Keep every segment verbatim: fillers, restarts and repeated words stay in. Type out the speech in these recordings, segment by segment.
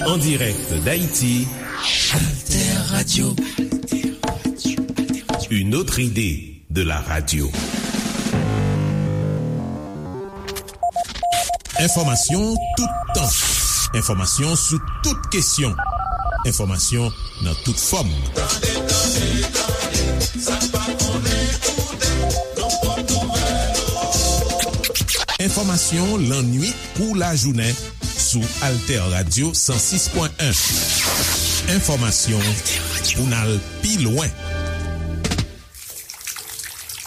En direct d'Haïti, Alter Radio. Une autre idée de la radio. Enfòmasyon toutan. Enfòmasyon sou tout kesyon. Enfòmasyon nan tout fòm. Tande, tande, tande, sa pa konnen koute, nan pòt nouvèl. Enfòmasyon lannuit kou lajounen sou Alter Radio san sis pwen en. Enfòmasyon pou n al pi lwen.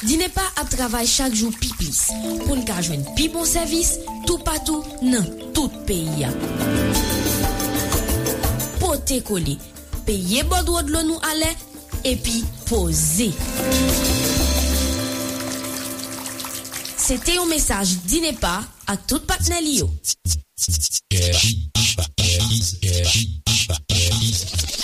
Dinepa ap travay chak jou pi plis pou n ka jwenn pi bon sèvis toupatou nan tout peyi a. Pote kole, peye bòdwo dlo nou alè, epi poze. Se te yon mesaj Dinepa ak tout patnè li yo.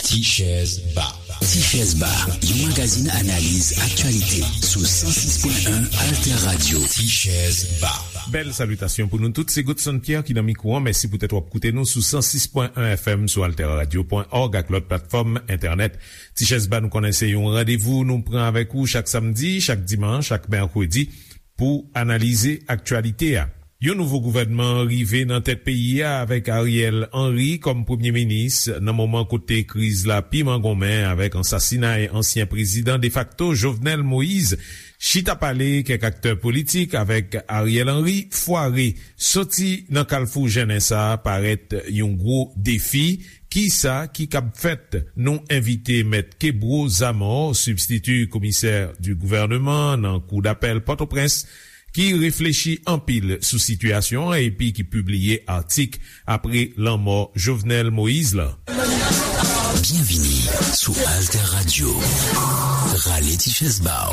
Tichèz Ba. Tichèz Ba, yon magazin analiz aktyalite sou san sis pwen en Alter Radio. Tichèz Ba. Bèl salitasyon pou nou tout. Se Godson Pierre ki nan mikwo an. Mèsi poutèt w ap koute nou sou san sis pwen en F M sou alter radio pwen org ak lòt platfòm entènèt. Tichèz Ba, nou konnen se yon randevou nou pran avèk ou chak samdi, chak dimanch, chak mèkredi pou analize aktyalite a. Yon nouvo gouvènman rive nan tèt peyi a avèk Ariel Henry kòm premye minis nan moman kote kriz la pi mangonmen avèk ansasinay ansyen prezidan defakto Jovenel Moïse. Chita pale kèk aktè politik avèk Ariel Henry fware. Soti nan kalfou jennen sa a parèt yon gwo defi. Kisa ki kab fèt? Nou envite Mèt Kebro Zamor, sibstiti komisè di gouvèneman nan Kou dapèl Pòtoprens, ki reflechi anpil sou sitiyasyon an epi ki pibliye atik apre lanmò Jovenel Moïse la. Byenvini sou Alter Radio. Rale ti chèz ba w.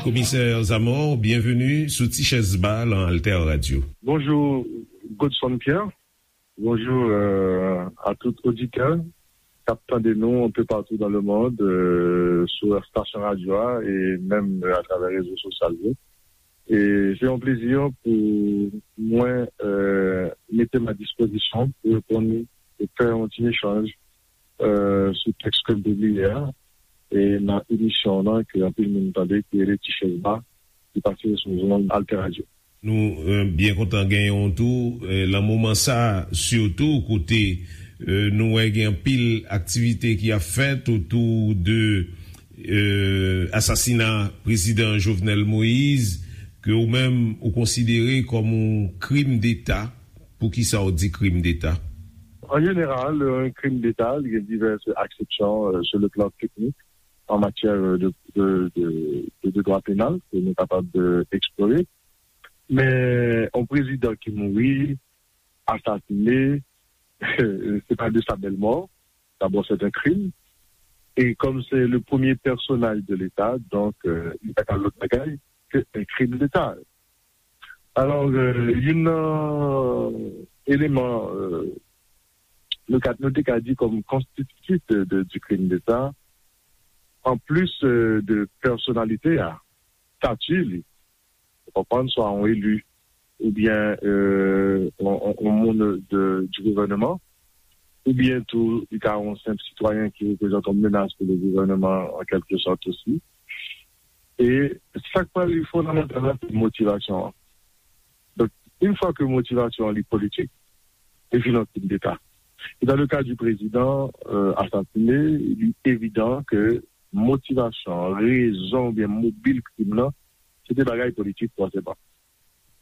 Komisè Zamor, byenveni sou Ti Chèz Ba nan Alter Radio. Bonjou, Godson Pierre. Bonjou, euh, a tout oditè k ap tande nou un peu partout dans le monde, euh, sou estasyon radyo a e menm, euh, atravè rezo sosyal yo. E se yon plezi pou mwen, euh, mete m a dispozisyon pou reponn e fè yon ti echanj, euh, sou tèks ke m pibliye a, e nan emisyon an ke anpil moun tande, ki rele Ti Chèz Ba, ki pase sou zonn Alter Radio. Nou, euh, byen kontan genyen w tou, euh, nan moman sa a, sitou kote, euh, nou wè gen anpil aktivite ki ap fèt otou de, euh, asasina prezidan Jovenel Moïse, ke ou menm ou konsidere kòm yon krim deta. Poukisa w di krim deta? An jeneral, yon krim deta, li gen divès aksepsyon, euh, sur le plan technique, en matière de, de, de, de, de droit pénal, ke nou kapab, euh, eksplore. Men, yon prezidan ki mouri, asasine, se pa de sa bèl mò. D'abord, c'est un crime. Et comme c'est le premier personnage de l'État, donc, euh, li pa ka lòt bagay ke un crime d'État. Alò, euh, youn nan eleman, euh, nou ka, nou te ka di kòm konstititif de, de, du crime d'État, an plis, euh, de pèsonalite a, stati li, ou konprann, swa yon eli, oubyen, euh, yon, yon, yon moun de, du gouvèneman, oubyen tou, li ka yon senp sitwayen ki reprezante yon menas pou le gouvèneman, an kèlke sòt osi. E sa k pral fondamantal la, se motivasyon an. Donk, yon fwa ke motivasyon an li politik, li vin yon krim deta. E dans le cas du président, euh, assassiné, li evidan ke motivasyon, rezon oubyen mobil krim nan, se te bagay politik fòseman.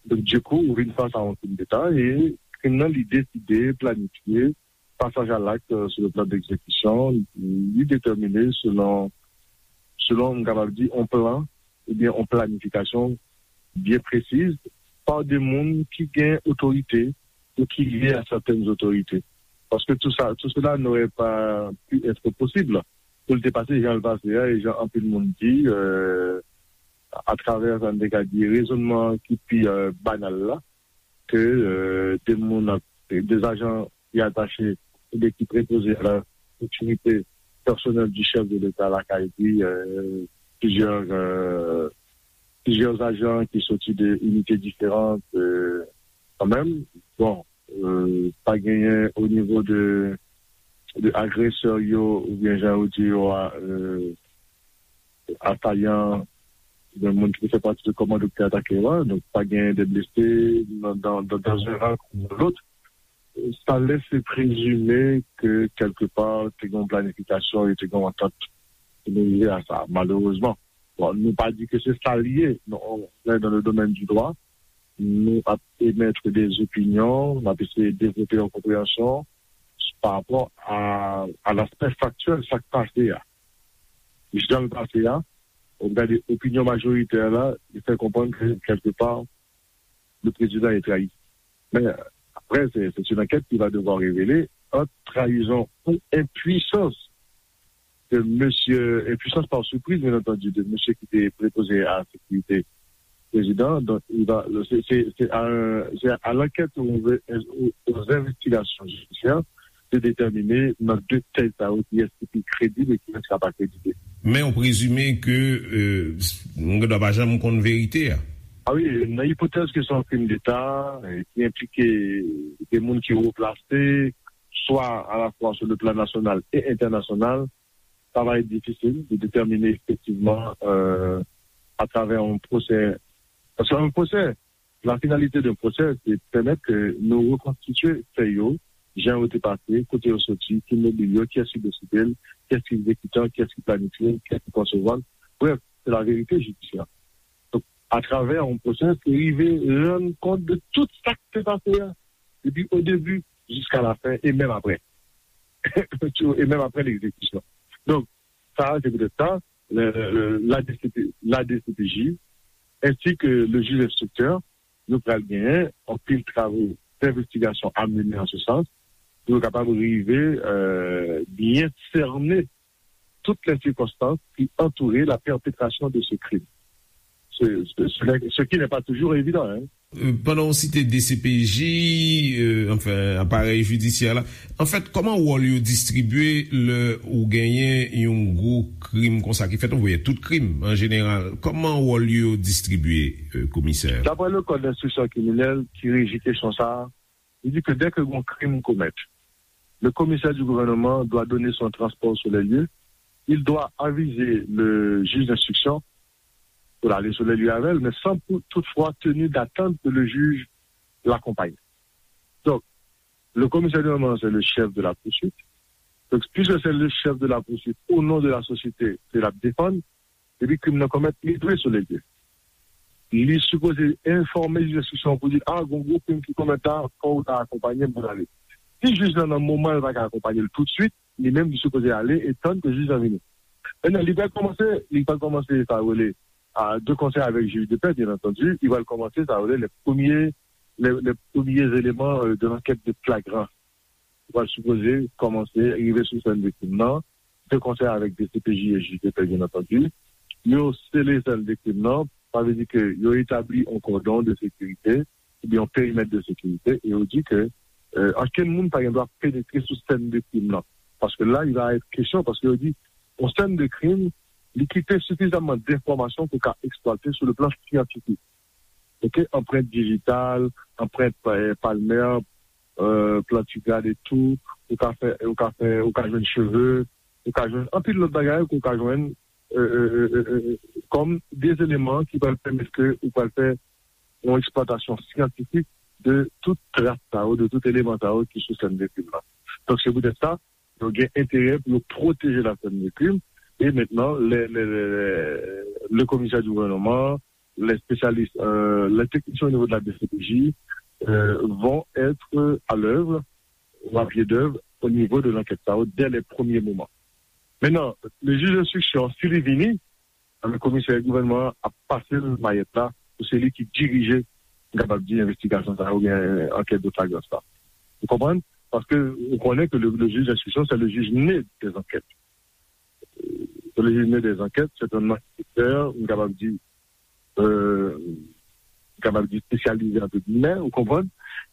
Donk, dikou, ou vin fas a yon krim deta e krim nan, li deside, planifye, pasaj a lakt, euh, sur le plan d'exécution, li detèmine selon, selon, m kapab di, yon plan oubyen yon planifikasyon byen presiz pa de moun ki gen otorite ou ki lye a sètèn otorite. Paske tout sa, tout cela n'aurait pas pu être possible pou l te pase jan l pase a, e jan anpil moun di, euh, atravè sa n te ka di rezonnman ki pi, euh, banal la, ke, euh, de moun ap, de zajan ki atache oubyen ki prepoze a la sekirite pèsonèl di chèf de Leta lakay li, euh, plizyè, euh, plizyè ajan ki soti de inite diferan, kanmenm. Bon, pa genyen o nivo de, de agresè yo oubyen jan yo di yo a, asayan, oubyen moun ki te fè pati de kòmando ki te atake yo a. Donk, pa genyen de blese nan, nan, nan, nan yon ran kou nan lòt. Sa lese prezime ke kèlkepa te gen yon planifikasyon e te gen yon antant pou nou rive a sa, malerezman. Bon, nou pa di ke se sa l ye, non, on est dans le domaine du droit, nou ap emettre des opinions, nou ap eseye devlope yon konpreyansyon pa rapò a, a l'aspect factuel, sa k pase a. Jan l pase a, ou gade opinyon majoritè la, li fè konprann ke kèlkepa, le président est trahi. Men apre, se, se yon ankèt ki va devwa revele ant trayizon ou enpwisans de mesye, enpwisans pa sipriz, byen antandi, de mesye ki te prepoze a sekirite prezidan. Donk, il va, se, se, se a, se a lankèt ou, ou, aux investigations judiciaires de déterminer nan de tèt sa yo kiyès ki pi kredib e kiyès ki pa kredib. Men ou prezime ke, euh, nou gen dwa pa janm konn verite a. A wi, nan ipotèz ke se yon krim deta, eh, ki enplike de moun ki wo plase, swa alafwa sou le plan nasyonal e entènasyonal, sa va être difficile de déterminer effectivement, euh, à travers un procès. Parce qu'un procès, la finalité d'un procès, c'est de permettre que nous reconstituer faits yo, jan yo te pase, kote yo soti, ki mobil yo, kiyès ki deside l, kiyès ki egzekitan, kiyès ki planifye, kiyès ki konsevwa l. Bref, c'est la vérité judiciaire. Donk, atravè yon pwosè, se rive rann kont de tout sa k te pase a, depi o debi jiska la fen, e menm apre. E menm apre legzekisyon. Donk, sa, se poutèt sa, le, le, le, la D C P, la D C P J, ensi ke le jij enstriktè, yo pral genyen anpil travo d'investigation à mener en ce sens, pou yo kapab rive, euh, byen sènen toutes les circonstances qui entouraient la perpétration de ce crime. Ce, ce, ce n'est- ce qui n'est pas toujours évident, hein. Euh, pandan w site D C P J, euh, anfen, aparèy jidisyè la, anfèt, kòman wòl yo distribye lè ou genyen yon gwo krim konsa ki fèt, ou voye tout krim an jeneral, kòman wòl yo distribye, euh, komisè? D'après le code d'instruction criminelle qui régit question ça, il dit que dès que un crime commet, le commissaire du gouvernement doit donner son transport sur les lieux, il doit aviser le juge d'instruction pou l ale sou lè li avè l, men san pou, toutfwa tenu d'attendre que le juge l'accompagne. Donk, le commissaire du moment, c'est le chef de la poursuite. Donk, puisque c'est le chef de la poursuite, au nom de la société ke l ap defann, depi krim nan komèt, li dwe sou lè l ye. Li sipoze enfòme jij enstriksyon pou di, a, gon gwo krim ki komèt la, fò w ta akonpanye m pou n ale. Si jij lan nan moman l pa ka akonpanye l toutswit, li menm li sipoze ale e tann ke jij lan vini. Mentnan, li pral kòmanse, li pral kòmanse sa yo rele, a, de concert avec juge de paix, bien entendu, li pral kòmanse sa yo rele les premiers, les, les premiers éléments, euh, de l'enquête de flagrance. Li pral sipoze kòmanse rive sou sèn de krim nan, de concert avec D C P J et juge de paix, bien entendu. Yo sele sèn de krim nan, sa vle di ke yo etabli yon kòdon de sekirite, oubyen yon perimèt de sekirite, e yo di ke, euh, okenn moun pa gen dwa penetre sou sèn de krim nan. Paske la, il va être question, paske yo di, yon sèn de krim, li kite sifizamman denfòmasyon pou ka eksplwate sou le plan syantifik. Ok, anprent dijital, anprent, euh, palmè, euh, plantigrad etou, ou ka fè, ou ka fè, ou ka jwenn cheve, ou ka jwenn anpil lòt bagay ke ou ka jwenn, euh, euh, euh, euh, euh, kòm de eleman ki pral pèmèt ke ou pral fè yon eksplwatasyon syantifik de tout tras sa yo, de tout eleman sa yo ki sou sèn de krim nan. Donk, se poutèt sa, yo gen enterè pou yo pwoteje la sèn de krim. E mentnan, le, le, le, le, le komisè di gouvènman, les spécialistes, euh, les techniciens au niveau de la D C P J, euh, vont être à l'œuvre ou à pied d'œuvre au niveau de l'enquête sa yo dès les premiers moments. Mentnan, le jij enstriksyon, si li vini, anben, komisè gouvènman an ap pase l mayèt la pou se li ki dirije, m kapab di, envestigasyon sa yo oubyen, euh, ankèt de flagrans la. Ou konprann? Paske ou konnen ke le, le juge d'instruction, c'est le juge né des enquêtes. Euh, c'est le juge né des enquêtes, c'est un enquêteur, m kapab di, euh, m kapab di spécialisé, entre guillemets, ou konprann?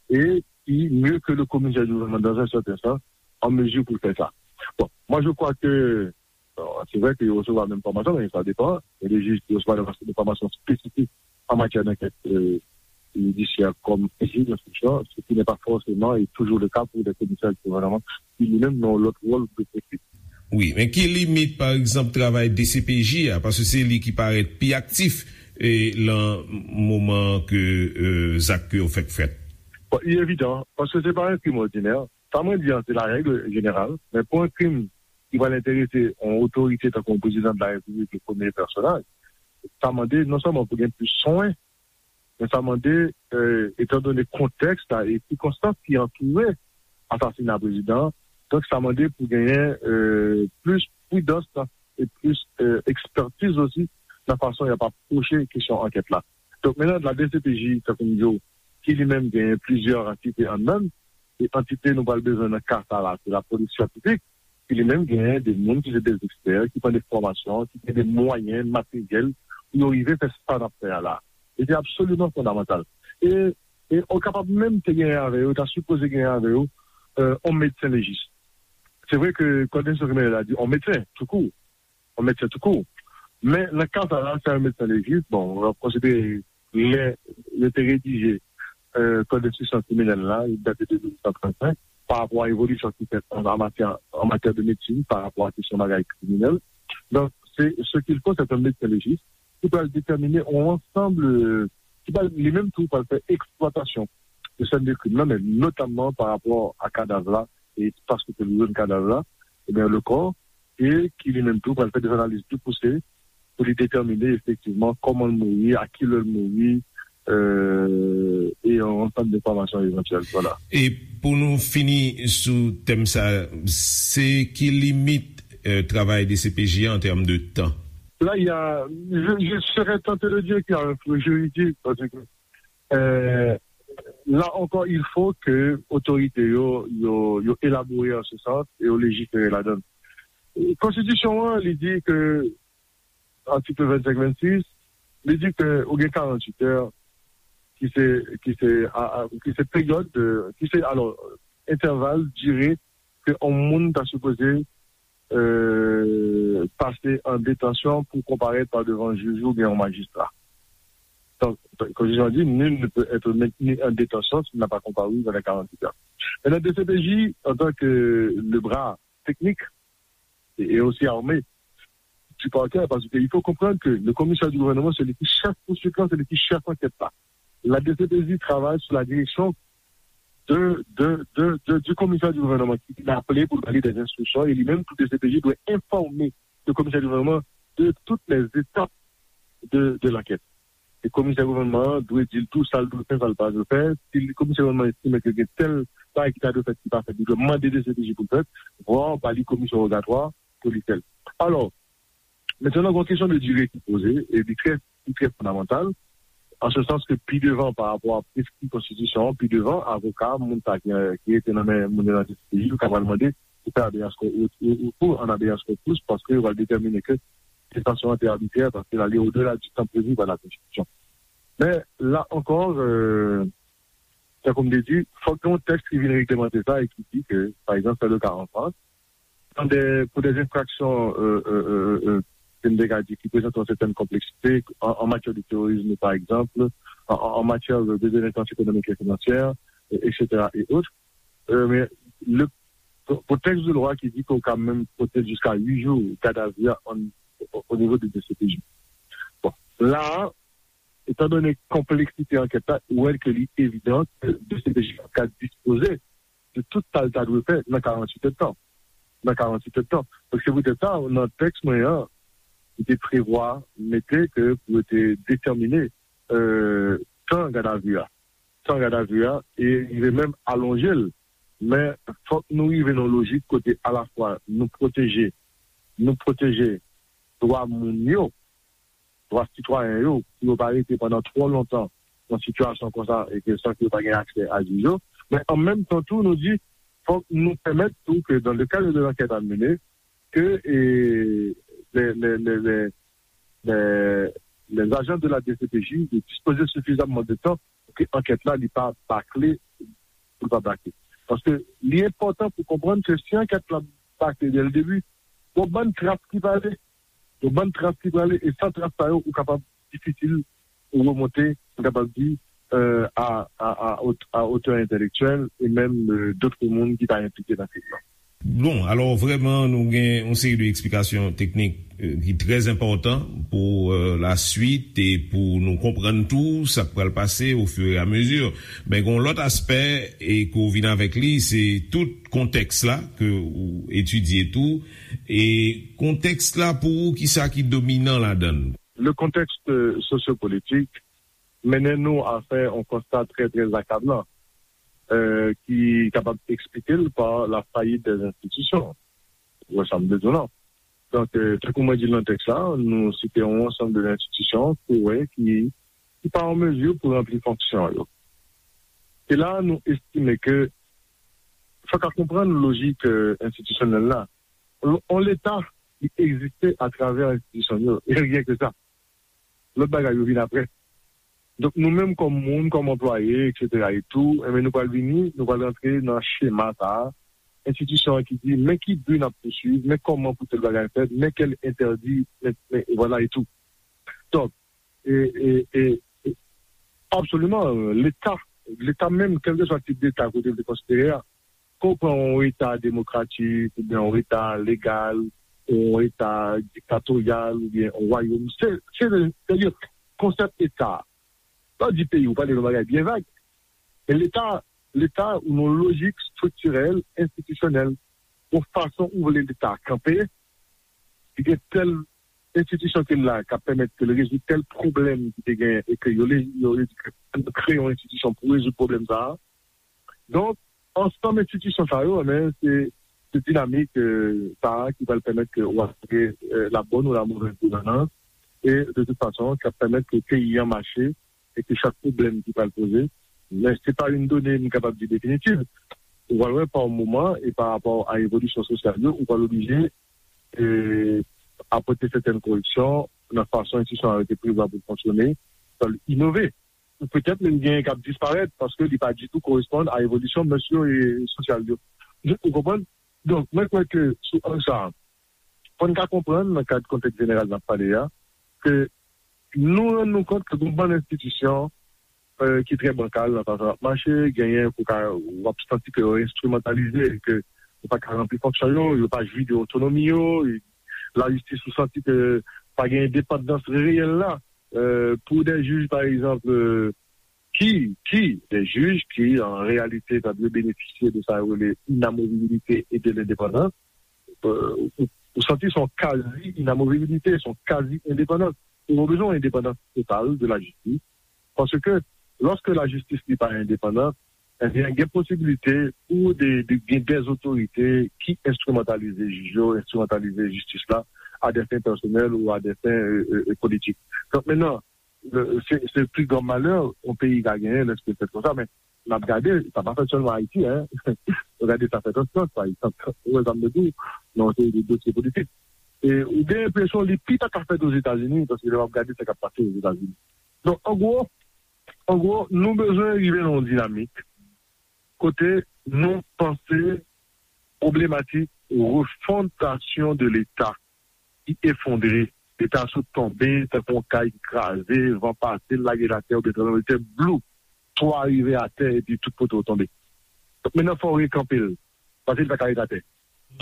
E ki, mieux que le commissaire du gouvernement dans un certain sens, en mesure pour faire ça. Bon, moi je crois que Bon, se vre ke yo resevwa menm fòmasyon, men sa depann. Gen de jij ki resevwa de fòmasyon espesifik an matyè dankèt jidisyè kòm jij enstriksyon, ce qui n'est pas forcément et toujours le cas pour des commissaires du gouvernement ki li menm nan lòt wòl de pwosedi. Wi, men ki limit, pa egzanp, travay D C P J a, paske se li ki parèt pi aktif e, lan moman ke e, zak yo fèk fèt? Bon, li evidan, paske se pa yon krim òdinè. Sa mwen di an, se la règle générale, men pou yon krim ki pral enterese yon otorite tankou yon prezidan de la repiblik, le premye pèsonaj, sa mande non sèlman pou gen plis swen, men sa mande, etandone kontèks la e sikonstans ki antoure asasina prezidan an, donk sa mande pou genyen plis pridans e plis ekspètiz osi nan fason y ap apwoche kesyon ankèt la. Donk, menm la D C P J, tankou m di w, ki li menm genyen plizyè antite anndan l, e antite nou pral bezwen nan ka sa la, se lapolis syantifik, ki li menm genyen de moun ki se de ekspè, ki pran de fòmasyon, ki gen de mwayen materyèl pou yo rive fè sa n ap fè a la. E se absoliman fondamantal. E, e ou kapab menm te genyen avè yo, ta sipoze genyen avè yo, yon medsen lejis. Se vre ke kòd enstriksyon kriminèl la di yon medsen, toukou, yon medsen toukou. Men nan ka sa la, se yon medsen lejis, bon, w ap konsidere lè yo te redije kòd enstriksyon kriminèl la, li date de mil nèf san trannsenk, pa rapò a evolisyon ki fèt an matyè, an matyè de medsin, pa rapò a kesyon bagay kriminèl. Donk, se ce qu'il faut, c'est un médecin légiste ki pral detèmine yon ansanm, ki pral li menm tou pral fè eksplwatasyon de sèn de krim nan, men notamman pa rapò a kadav la e espas kote li jwenn kadav la, ebyen le corps, e ki li menm tou pral fè de analiz pli pouse pou li detèmine efektivman kòman l mouri, a ki lè l mouri, e yon ansanm de enfòmasyon evantyèl. Vwala. E pou nou fini sou tèm sa, se ki limit travay D C P J an tèm de tan? Là, il y a, je, je serais tenté de dire qu'il y a un flou juridique, parce que euh, là encore, il faut que autorités yo, yo, yo élaborer en ce sens et yo légiférer là-dedans. Konstitisyon an, li di ke, atik vennsenk vennsis, li di ke ou gen karanntuit è ki se, ki se, a, a, ki se peryòd, de, ki se, alò, entèval, dire ke yon moun ta sipoze euh, pase an detansyon pou konparèt pa devan jij oubyen yon majistra. Donk, konstitisyon an di, nul ne peut être maintenu en détention s'il n'a pas comparu dans les quarante-huit heures. Maintenant, D C P J, en tant que le bras technique et, et aussi armé du parquet, parce qu'il faut comprendre que le commissaire du gouvernement, c'est lui qui chef poursuivant, c'est lui qui chef enquête là. La D C P J travaille sous la direction de, de, de, de, du commissaire du gouvernement qui l'a appelé pour donner des instructions et lui-même, tout D C P J doit informer le commissaire du gouvernement de toutes les étapes de, de l'enquête. E komisè gouvènman an dwe di l tou sa l dwe fè, sa l pa dwe fè. Si komisè gouvènman an estime ke gen tèl bagay ki ta dwe fèt ki pa fèt, li dwe mande D C P J pou l fèt, vwa ba li komisyon wogatwa pou li fè l. Alò, mentnan gen yon kesyon de dire ki poze, e li trè, li trè fondamantal, an se sans ke pi devan pa rapò a preskri konstitisyon an, pi devan, avoka, moun sa ki, ki rete nan men moun yo nan D C P J, yo ka pral mande pou fè habeas corpus, ou, ou, ou an habeas corpus, paske yo pral detèmine ke detansyon an te abitrè, paske l ale odela di tan previ pa la konstitisyon. Men, la ankò, euh, tankou m te di, fòk gen yon tèks ki vin reglemante sa e ki di ke, pa egzanp, se le ka an Frans, dans des, pour des infractions, euh, euh, euh, euh, ke m te ka di, ki prezante yon sètèn konpleksite, an, an matyè de terorizm, pa egzanp, an, an, an matyè de, de delenkans ekonomik e finansyè, euh, et cetera, et autres. Euh, men, le, pou, pou tèks de lwa ki di ke w ka menm pote l jiska uit jou gadavi a an, o, o nivo de D C P J. Bon, la a, etandone konpleksite ankèt la, ou wè ke li evidan ke D C P J ap ka dispoze de tout sa l ta dwe fè nan karanntuit èdtan. Nan karanntuit èdtan. Donk, se poutèt sa, nan tèks mwen an, li te prevwa mete ke pou yo te detèmine, euh, tan gadavi a. Tan gadavi a, e rive menm alonje l. Men, fòk nou rive nan yon lojik kote alafwa nou pwoteje, nou pwoteje dwa moun yo, dwa sitwayen yo, pou yo pa rete pandan twò lontan nan sitiyasyon konsa e ke san ke yo pa gen aksè a jij yo. Men an menm tan tou, nou di, fòk nou pèmèt tou ke dans le cadre de l'enquête à mener, ke, e, les, les, les, les, les, les agents de la D C P J de dispoze sifizamman de tan pou ke ankèt la, li pa bakle, pou l pa bakle. Paske li enpòtan pou konprann ke si ankèt la bakle dès le début, Gon bann tras ki prale. Gon bann tras ki prale. E san tras sa yo, ou kapab difisil ou remonte, m kapab di, euh, a, a, a, ot- a otè entèlektyèl e menm euh, dòt moun ki ta enplike nan kriz lan. Bon, alò vrèman nou gen yon seri de eksplikasyon teknik euh, ki trè enpòtan pou euh, laswit e pou nou konprann tou sa k pral pase ofiramezu. Men gen yon lòt aspè e ke w vin avèk li, se tout kontèks la ke ou etidye tou. E kontèks la pou ou, kisa ki dominan ladan l? Le contexte sociopolitique mennen nou a fè yon konsta trè, trè akablan euh, ki kapab eksplike l pa la fayit dè enstitisyon. Ou wè sa m bezwen lan. Donk, euh, tankou mwen di l nan tèks la, nou site yon ansanm de enstitisyon ki wè ki, ki pa an mezi pou ranpli fonksyon yo. E la, nou estime ke fòk a konprann lojik euh, enstitisyonèl la. On, on Leta, li egziste atravè enstitisyon yo. E ryen ke sa. Lòt bagay yo vin apre. Donk nou menm kòm moun, kòm anplwaye, etsetera e tou, enben nou pral vini, nou pral rantre nan chema sa a, enstitisyon an ki di men ki bi n ap pouswiv, men kòman pou tèl bagay fèt, men kèl entèdi, men, men vwala e tou. Donk, e, e, e, e, absoliman, Leta, Leta menm, kèlkeswa tip Leta kote l te konsidere a, ke w pran yon Eta demokratik, oubyen yon Eta legal, yon Eta diktatoryal, oubyen yon wayòm. Se, se, se, se konsèp Eta. Lè w di peyi, ou pale yon bagay byen vag. Men Leta, Leta, ou nan lojik estriktirèl, enstitisyonèl, yon fason ou vle Leta kanpe, li gen tèl enstitisyon ki la k ap pèmèt ke l rezoud tèl pwoblèm ki te gen e ke yo le- yo le- kreye yon enstitisyon pou rezoud pwoblèm sa a. Donk, ansanm enstitisyon sa yo, men, se, se dinamik euh, sa a ki pral pèmèt ke w asire euh, la bonne ou la mauvaise gouvernance e de tout fason, k ap pèmèt ke peyi an mache e ke chak pwoblèm ki pral poze, men se pa yon done m kapab di definitiv. Ou pral wè pa yon moman e pa rapò a evolisyon sosyal yo, ou pral oblije e, apòte sètèn koreksyon nan fason enstitisyon an rete prevwa pou l fonksyone, pou l inove. Ou petèt menm gen k ap disparèt paske li pa ditou koresponn a evolisyon mès yo e sosyal yo. Ou konprann? Donk, mwen kwè ke sou ang sa a, fò n ka konprann nan kad kontèks jeneral n ap pale a, ke nou rann nou kont ke gon bann enstitisyon euh, ki trè bankal nan fason y ap mache, genyen pou ka, w ap santi ke yo enstrimantalize, ke yo pa ka ranpli fonksyon yo, yo pa jwi de otonomi yo, lajistis ou santi ke pa gen endepandans reyèl la euh, pou de jij, pa egzanp, euh, ki, ki, de jij ki, an reyalite, ta dwe benefisye de sa yo rele inamovibilite e de lendepandans, euh, ou, ou santi se yon kazi inamovibilite, se yon kazi endepandans. Ou bezwen yon endepandans total de lajistis. Paske, lòske lajistis li pa endepandan, ebyen, gen posibilite pou de, de, gen dèzotorite ki enstrimantalize jij yo, enstrimantalize jistis la, a dè fen pèsonèl ou a dè fen euh, euh, politik. Donk, mennan, euh, se, se pli gran malè yon peyi ka genyen lèske l fèt konsa, men n ap gade, sa pa fèt sèlman Ayiti, en. Nou gade sa fèt an Frans, pa egzanp. Ou wè sa m vle di w, nan yon seri de dosye politik. E ou gen enpresyon li pi ta ka fèt Ozetazini, paske lè w ap gade sa k ap pase Ozetazini. Donk, an gwo, an gwo, nou bezwen rive nan yon dinamik kote nou panse pwoblematik refondasyon de Leta ki efondre, Leta sot tonbe tankou yon kay ki kraze, van pase l, lage l atè, oubyen tranblemanntè, blou, twa rive atè, epi tout poto tonbe. Donk, mennan, fò w rekanpe l, paske li pa ka ret atè.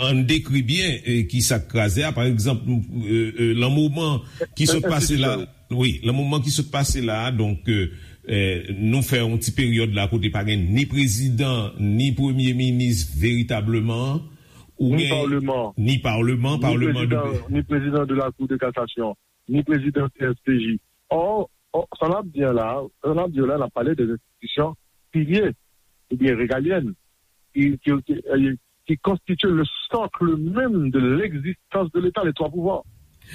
Ann dekri byen eh, ki sa k kraze a. Pa egzanp, eh, eh, lan moman ki sot pase la, wi, lan moman ki sot pase la, donk, eh, eh, nou fè yon ti peryòd la kote pa gen ni prezidan, ni premye minis veritableman, ou Ni gen paleman. Ni paleman, Ni paleman de prezidan, ni prezidan de la Cour de cassation, ni prezidan C S P J. Or, or, sa n ap di an la, sa n ap di an la, n ap pale de enstitisyon pilye oubyen regalyèn ki, ki, ki, eh, ki konstitye le socle même de l'existence de l'État, les trois pouvoirs.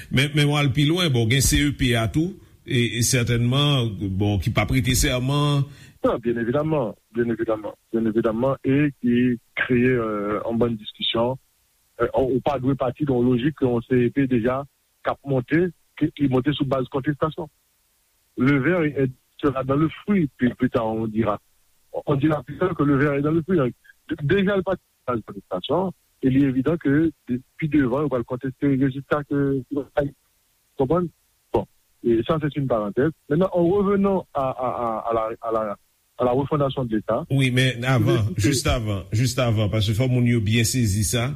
Men, men w al pi lwen, bon, gen C E P a tou, e, e sètènman, bon, ki pa prete sèman. Non, byen evidaman, byen evidaman, byen evidaman, e ki kreye euh, an bann diskisyon. Euh, ou pa dwe pati de yon lojik ke yon C E P deja k ap monte, ki, ki monte sou baz kontestasyon. Le ver est, sera dans le fruit, puis plus tard on dira. On dira plus tard que le ver est dans le fruit. Donc, déjà, le parti de base de l'administration, E li evidan ke de- pi devan, yo pral konteste rezilta ke yo bay. Konprann? Bon, e sa, se yon parantèz. Maintenant, en revenant à, à, à, à la, à la, à la refondation de l'État. Wi, men avan, jis avan, jis avan, paske fò moun yo byen sezi sa,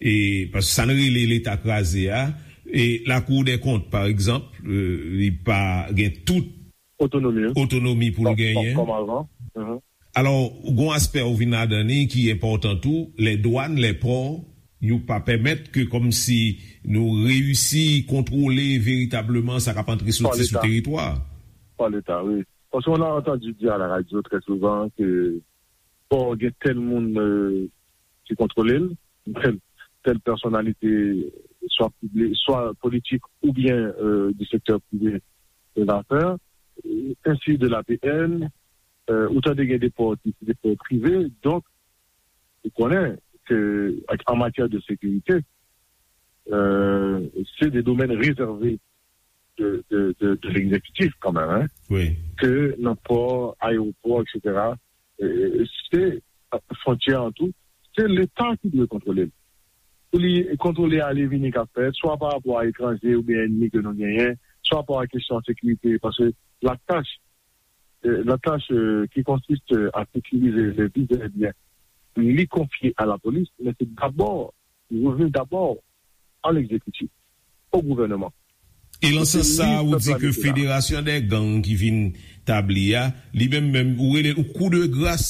e paske sa n rele Leta kraze a, e Lakou dè Kont, pa egzanp, li pa gen tout Otonomi. otonomi pou l genyen. Kòm avan. Mhm. Alò, gon aspè ou vin ladan li ki enpòtan tou, lè dwàn, lè pò, yo pa pèmèt ke kòmsi nou reyisi kontwole veritableman sa k ap antre soti sou teritwa. Par l'État, oui. Parce qu'on a entendu dire à la radio très souvent que bon, il y a tel monde euh, qui contrôle, tel, telle personnalité, soit, publique, soit politique ou bien euh, du secteur privé de l'affaire, euh, ainsi de l'A P N, euh, autant de des ports, des ports privés. Donc, vous connaissez que en matière de sécurité, euh, c'est des domaines réservés de, de, de, de l'exécutif quand même, hein, Wi. que nan pò, ayewopò, et cetera. Euh, se fwontyè an tou, se Leta ki dwe kontwole l. Pou li kontwole ale vini k ap fèt, swa pa rapò a etranje oubyen ènmi ke nou genyen, swa pa rapò a kesyon sekirite, paske la tâche, euh, la tâche euh, qui consiste à sécuriser les vies et les biens, li konfye a la police, men se dabò, li revenu dabò a l'exécutif, au gouvernement. E lan sans sa, ou di ke federasyon dè gang ki vin tabli a, li menm menm, ou rele l kou de gras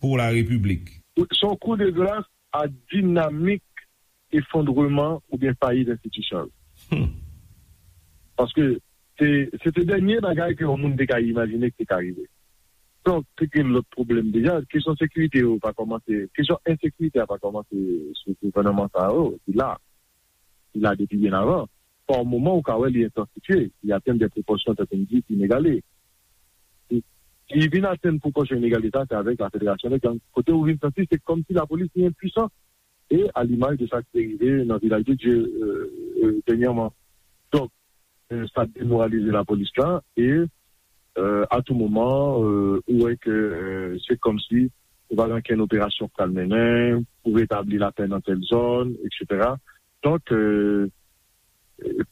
pou la repiblik. Se yon kou de gras a dinamik efondreman oubyen fayit enstitisyon yo. Paske se se te dènye bagay ke yon moun te ka imajine ki te ka rive. Donk, te gen lòt pwoblèm deja. Kesyon sekirite yo pa kòmanse, kesyon ensekirite a pa kòmanse sou gouvènman sa yo, li la. Li la depi byen avan. Pa yon moman, ou ka wè li entansifye, li atenn de pwopòsyon, tankou m di, inegale. Li vin atenn pwopòsyon inegale sa, se avèk la federasyon de gang. Kote ou vin santi, se kòmsi lapolis li enpwisan, e a limaj de sa ki te rive nan Vilaj de Dye dènyèman. Donk, sa demoralize lapolis la, e a tou moman, ou wè ke se kòmsi ou pa gen okenn operasyon k pral mennen pou retabli lapè nan tèl zòn, etsetera. Donk,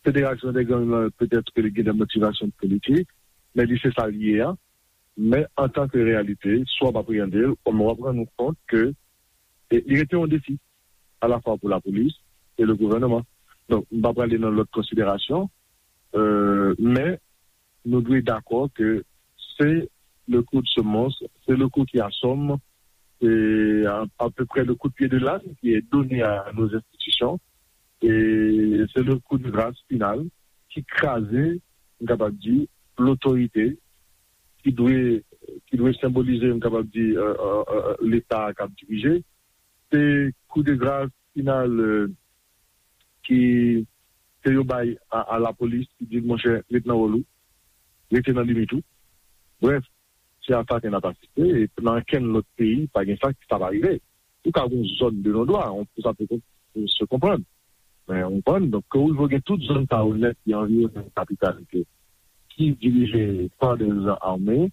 federasyon de gang nan, petèt ke li gen de motivasyon politik, men li se sa l ye a. Men antanke reyalite, si w ap apreyande l, w ap rann ou kont ke li rete yon defi alafwa pou lapolis e le gouvènman. Donk, m pa prale nan lòt konsiderasyon, men nou dwe dakò ke se le coup de semonce, c'est le coup qui assomme, c'est à, à peu près le coup de pied de l'âne qui est donné à nos institutions. E se le coup de grâce final ki kraze, m kapab di, lotorite ki dwe ki dwe senbolize, m kapab di, Leta k ap dirije. Se coup de grâce final ki ke yo bay a, a lapolis ki di l, monchè, ret nan wòl ou, rete nan limit ou. Brèf, se a sa ke n ap asiste, e nan okenn lòt peyi, pa gen sa ki sa pa rive. Ou ka gen yon zòn de non dwa, pou sa pou se konprann. Men ou konprann, donk ke ou gen tout zòn sa yo nèt ki anviwonnen kapital ke ki dirije pa de zan ame,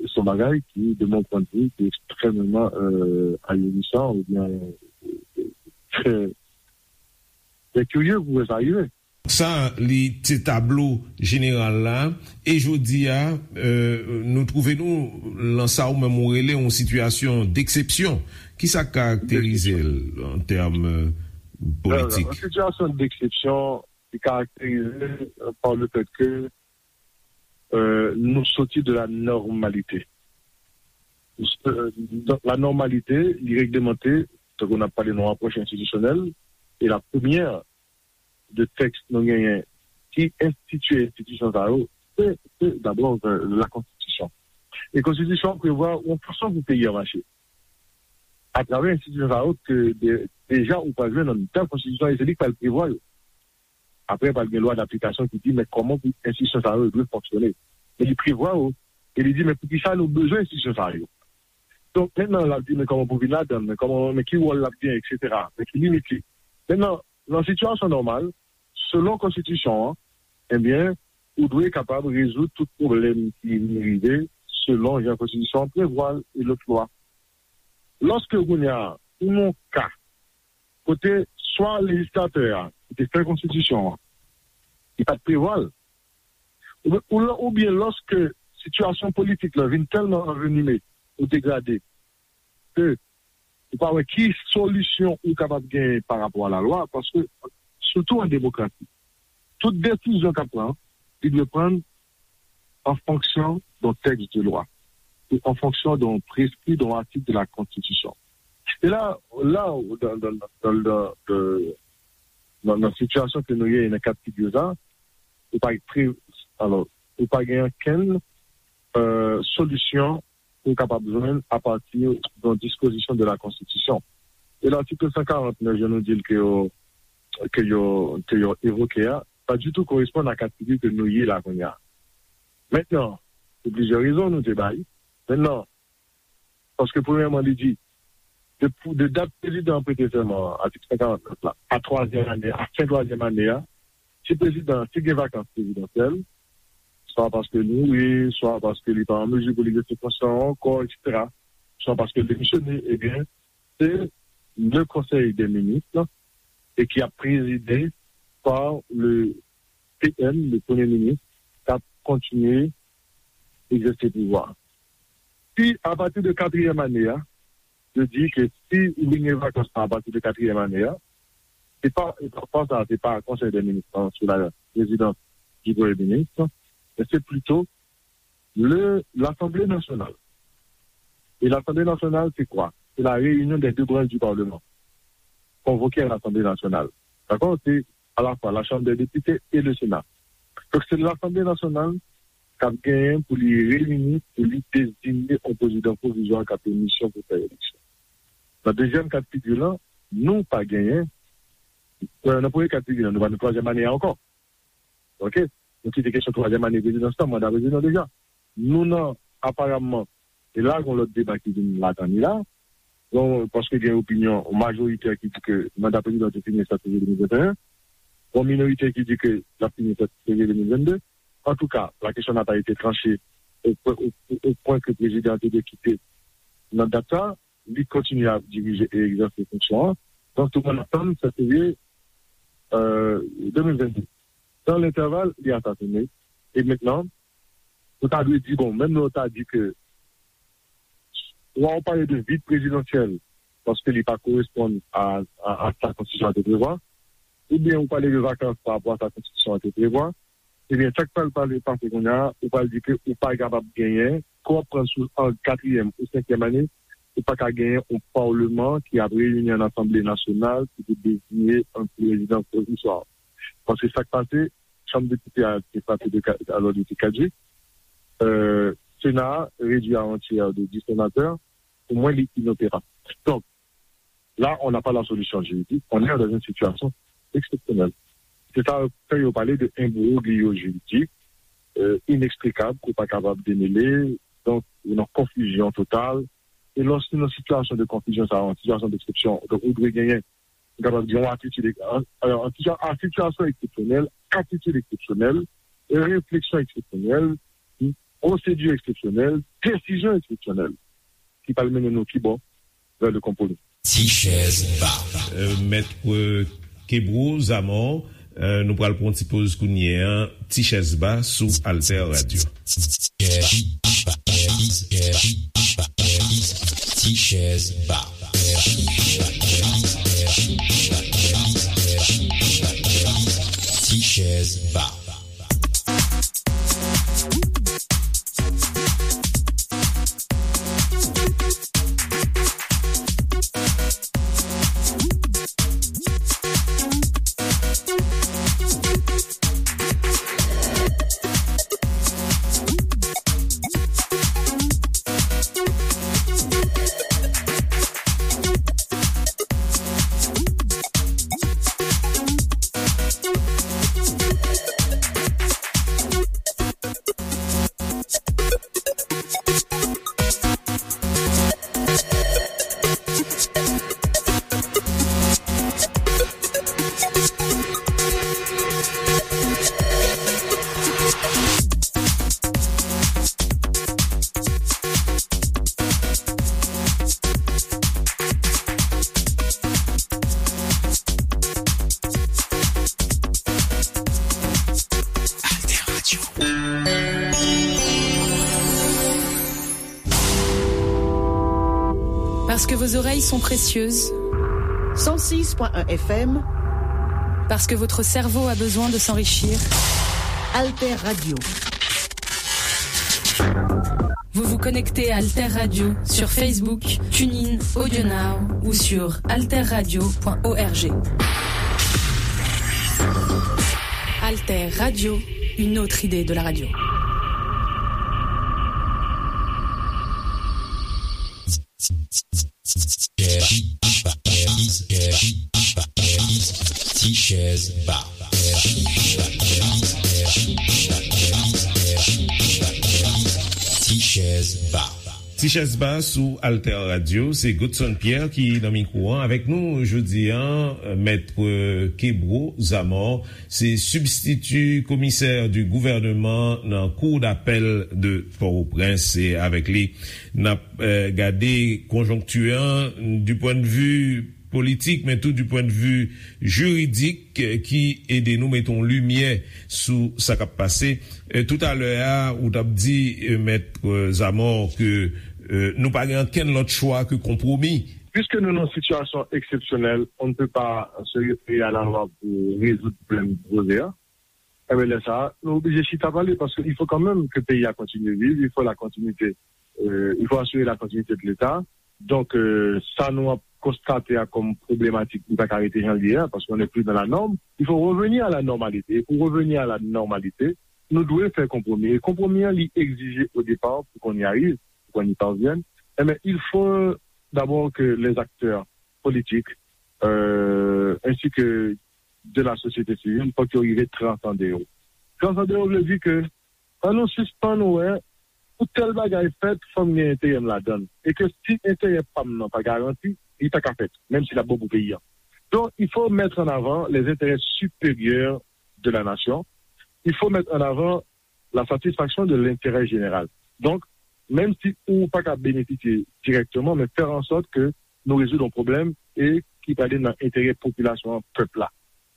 se yon bagay ki, de mon point de vue, ki ekstrèmeman ahirisan oubyen trè trè kirye pou wè sa rive. Sa, li se tablo jeneral la. E jodi a, nou twouve nou lan sa ou menm ou rele yon sitiyasyon deksepsyon. Kisa k karakterize l an tèm politik? Yon sitiyasyon deksepsyon ki karakterize pa le fèt ke nou soti de la nòmalite. La nòmalite, li reglemante, tankou n ap pale nan apwòch enstitisyonèl, e la premyè de tèks nou genyen ki enstitye enstitisyon sa yo, se, se dabò la konstitisyon. E konstitisyon an prevwa yon fason pou peyi a mache. Atravè enstitisyon sa yo, ke de, deja ou pral jwenn nan bèl konstitisyon, e se li k pral prevwa yo. Apre, pral gen lwa daplikasyon ki di, men kòman pou enstitisyon sa yo dwe fonksyone. Men li prevwa yo, e li di, men poukisa nou bezwen enstitisyon sa yo? Donk, mentnan, l ap di, men kòman pou vin ladan l, men kòman, men ki wòl l ap gen, etsetera, men ki limit li. Mentnan, nan sitiyasyon nòmal, selon konstitisyon an, ebyen, ou dwe kapab rezoud tout pwoblèm ki vin rive selon jan konstitisyon an prevwa l e lòt lwa. Lòske kounye a, ou nan yon ka kote swa lejislatè a ki te fè konstitisyon an, li pa t prevwa l, oubyen, oubyen lòske sitiyasyon politik la vin tèlman anvenime ou degrade ke ou pa wè ki solisyon ou kapab genyen pa rapò a lalwa, paske, sitou an demokrasi, tout desizyon k ap pran, li dwe pran an fonksyon d'un texte de loi, e an fonksyon d'un prescrit, d'un article de la Constitution. E la, la, dans, dans, dans, dans, dans, nan, nan sitiyasyon ke nou ye, nan ka figi sa, ou pa pre, alò, ou pa gen okenn, euh, solisyon ou kapab jwenn apati d'un dispozisyon de la Konstitisyon. E l'article cent quarante-neuf, jan nou di l ke yo, ke yo, ke yo evoke a, pa ditou koresponn a ka figi ke nou ye la kounye a. Mentnan, pou plizyè rezon nou te bay. Mentnan, paske premyèman, li di, de, de dat prezidan an prete sèman an, atik cent quarante-neuf la, a twazyèm ane, a fen twazyèm ane a, si prezidan, si gen vakans prezidansyèl, swa paske l mouri, swa paske li pa an mezi pou li egzèse fonksyon an ankò, et cetera, swa paske l demisyone, ebyen, se le Conseil des ministres, e ki ap prezide par le P M, le Premye Minis, k ap kontinye egzèse pouvwa. Si, apati de katriyèm ane a, yo di ke si li gen vakans lan apati de katriyèm ane a, se pa, e pa, pa sa, se pa Konsèy dè Minis lan sou la prezidans di Premye Minis, men se plito le, Lasanble Nasyonal. E Lasanble Nasyonal, se kwa? Se la réunion des deux branches du Parlement convoquées à l'Assemblée nationale. Dakò? Se alafwa la Chambre des députés et le Sénat. Donk, se Lasanble Nasyonal k ap genyen pou li reyini, pou li deziye yon prezidan pwovizwa k ap gen misyon pou fè eleksyon. Nan dezyèm ka d figi lan, nou pa genyen, euh, nan premye ka d figi lan, nou pa nan twazyèm ane a ankò. Oke? Nou kite kesyon twazyèm ane prezidans lan, manda prezidan deja. Nou nan, aparamman, e la, gen lòt deba ki vin ladan li la. Bon, paske gen opinyon majorite ki di ke manda prezidan te fini sèt fevriye de mil venteyen. Bon, minorite ki di ke l ap fini sèt fevriye de mil vennde. Antouka, la question n'a pas été tranchée au, au, au point que prezidan te dwe kite nan dat sa. Li kontinye ap dirije e egzèse fonksyon an. Donk, tout moun ap tann sèt fevriye, euh, de mil vennde. Dans l'intervalle, li asasine. E mentnan, nou ta dwe di, bon, menm lè w ta di ke swa w pale de vid prezidansyèl, paske li pa koresponn a, a, a sa konstitisyon an te prevwa, oubyen ou pale de vakans pa rapò a sa konstitisyon an te prevwa, ebyen, sa k pral pale pase kounye a, ou pral di ke ou pa kapab genyen, ke w ap pran sou an katriyèm ou senkyèm ane, ou pa ka genyen yon palman ki ap reyini an asanble nasyonal ki pou deziye yon prezidan pwovizwa. Paske sa k pase, chanm depite a te frape de ka-, alò, li te kadjik. Euh, Sena a redui a yon tyè de dis senatè. Pou mwen, li inoperab. Donk, là, on n'a pas la solution juridique, on est dans une situation exceptionnelle. Se sa k fè yo pale de imbroglio juridik, euh, ineksplikab, ke w pa kapab demele, donk, ou nan konfizyon total. E lòske nan sitiyasyon de konfizyon sa, yon sitiyasyon deksepsyon, donk, ou dwe genyen, ou kapab di, yon atitid, an, an, an sitiyasyon eksepsyonèl, atitid eksepsyonèl, refleksyon eksepsyonèl, pwosedi eksepsyonèl, desizyon eksepsyonèl, ki pral mennen nou ki bò? Vè le konpwomi. Ti chèz ba. Euh, Mèt, euh, Kebro Zamò, euh, nou pral pran yon ti poz kounye a. Ti chèz ba sou Alter Radio. Ti chèz ba. Ti chèz ba. Parce que vos oreilles sont précieuses. Cent six point un F M. Parce que votre cerveau a besoin de s'enrichir. Alter Radio. Vous vous connectez à Alter Radio sur Facebook, TuneIn, AudioNow ou sur alter radio point org. Alter Radio, une autre idée de la radio. Ti chèz ba. Ti chèz ba. Ti chèz ba sou Alter Radio, se Godson Pierre ki nan mikwo an. Avèk nou jodi an, Mèt Kebro Zamor, se sibstiti komisè di gouvènman nan Cour d'appel de Port-au-Prince. Se avèk li n ap, eh, gade konjonkti an du point de vue politik, men tou du point de vue jiridik, eh, ki ede nou mete yon limyè sou sa k ap pase. Eh, toutalè a, ou t ap di, eh, Mèt, eh, Zamor, ke, eh, nou pa gen ankenn lòt chwa ke konpwomi. Puisque nous, dans une situation exceptionnelle, on ne peut pas se référer à la loi pour résoudre problème posé, hein. Eh bien, là, ça, nous obligés de chita parler parce qu'il faut quand même que le pays a continué de vivre, il faut la continuité, euh, il faut assurer la continuité de l'État. Donc, euh, ça, nous avons constaté, hein, comme problématique, nous pas arrêter janvier, hein, parce qu'on n'est plus dans la norme. Il faut revenir à la normalité. Et pour revenir à la normalité, nous devons faire compromis. Et compromis, hein, il exige au départ, pour qu'on y arrive, pour qu'on y parvienne, eh bien, il faut d'abord que les acteurs politiques, euh, ainsi que de la société civile, fòk yo rive transande yo. Transande yo vle di ke, ann nou sispann wè, pou tèl bagay fèt, fò m gen enterè m ladan l. E ke si enterè pa m nan pa garanti, li pa ka fèt, menm si l ap bon pou peyi a. Donc, il faut mettre en avant les intérêts supérieurs de la nation. Il faut mettre en avant la satisfaction de l'intérêt général. Donc, menm si ou pa ka benefisye dirèkteman, men fè an sòt ke nou rezoud yon pwoblèm e ki prale nan enterè popilasyon an, pèp la.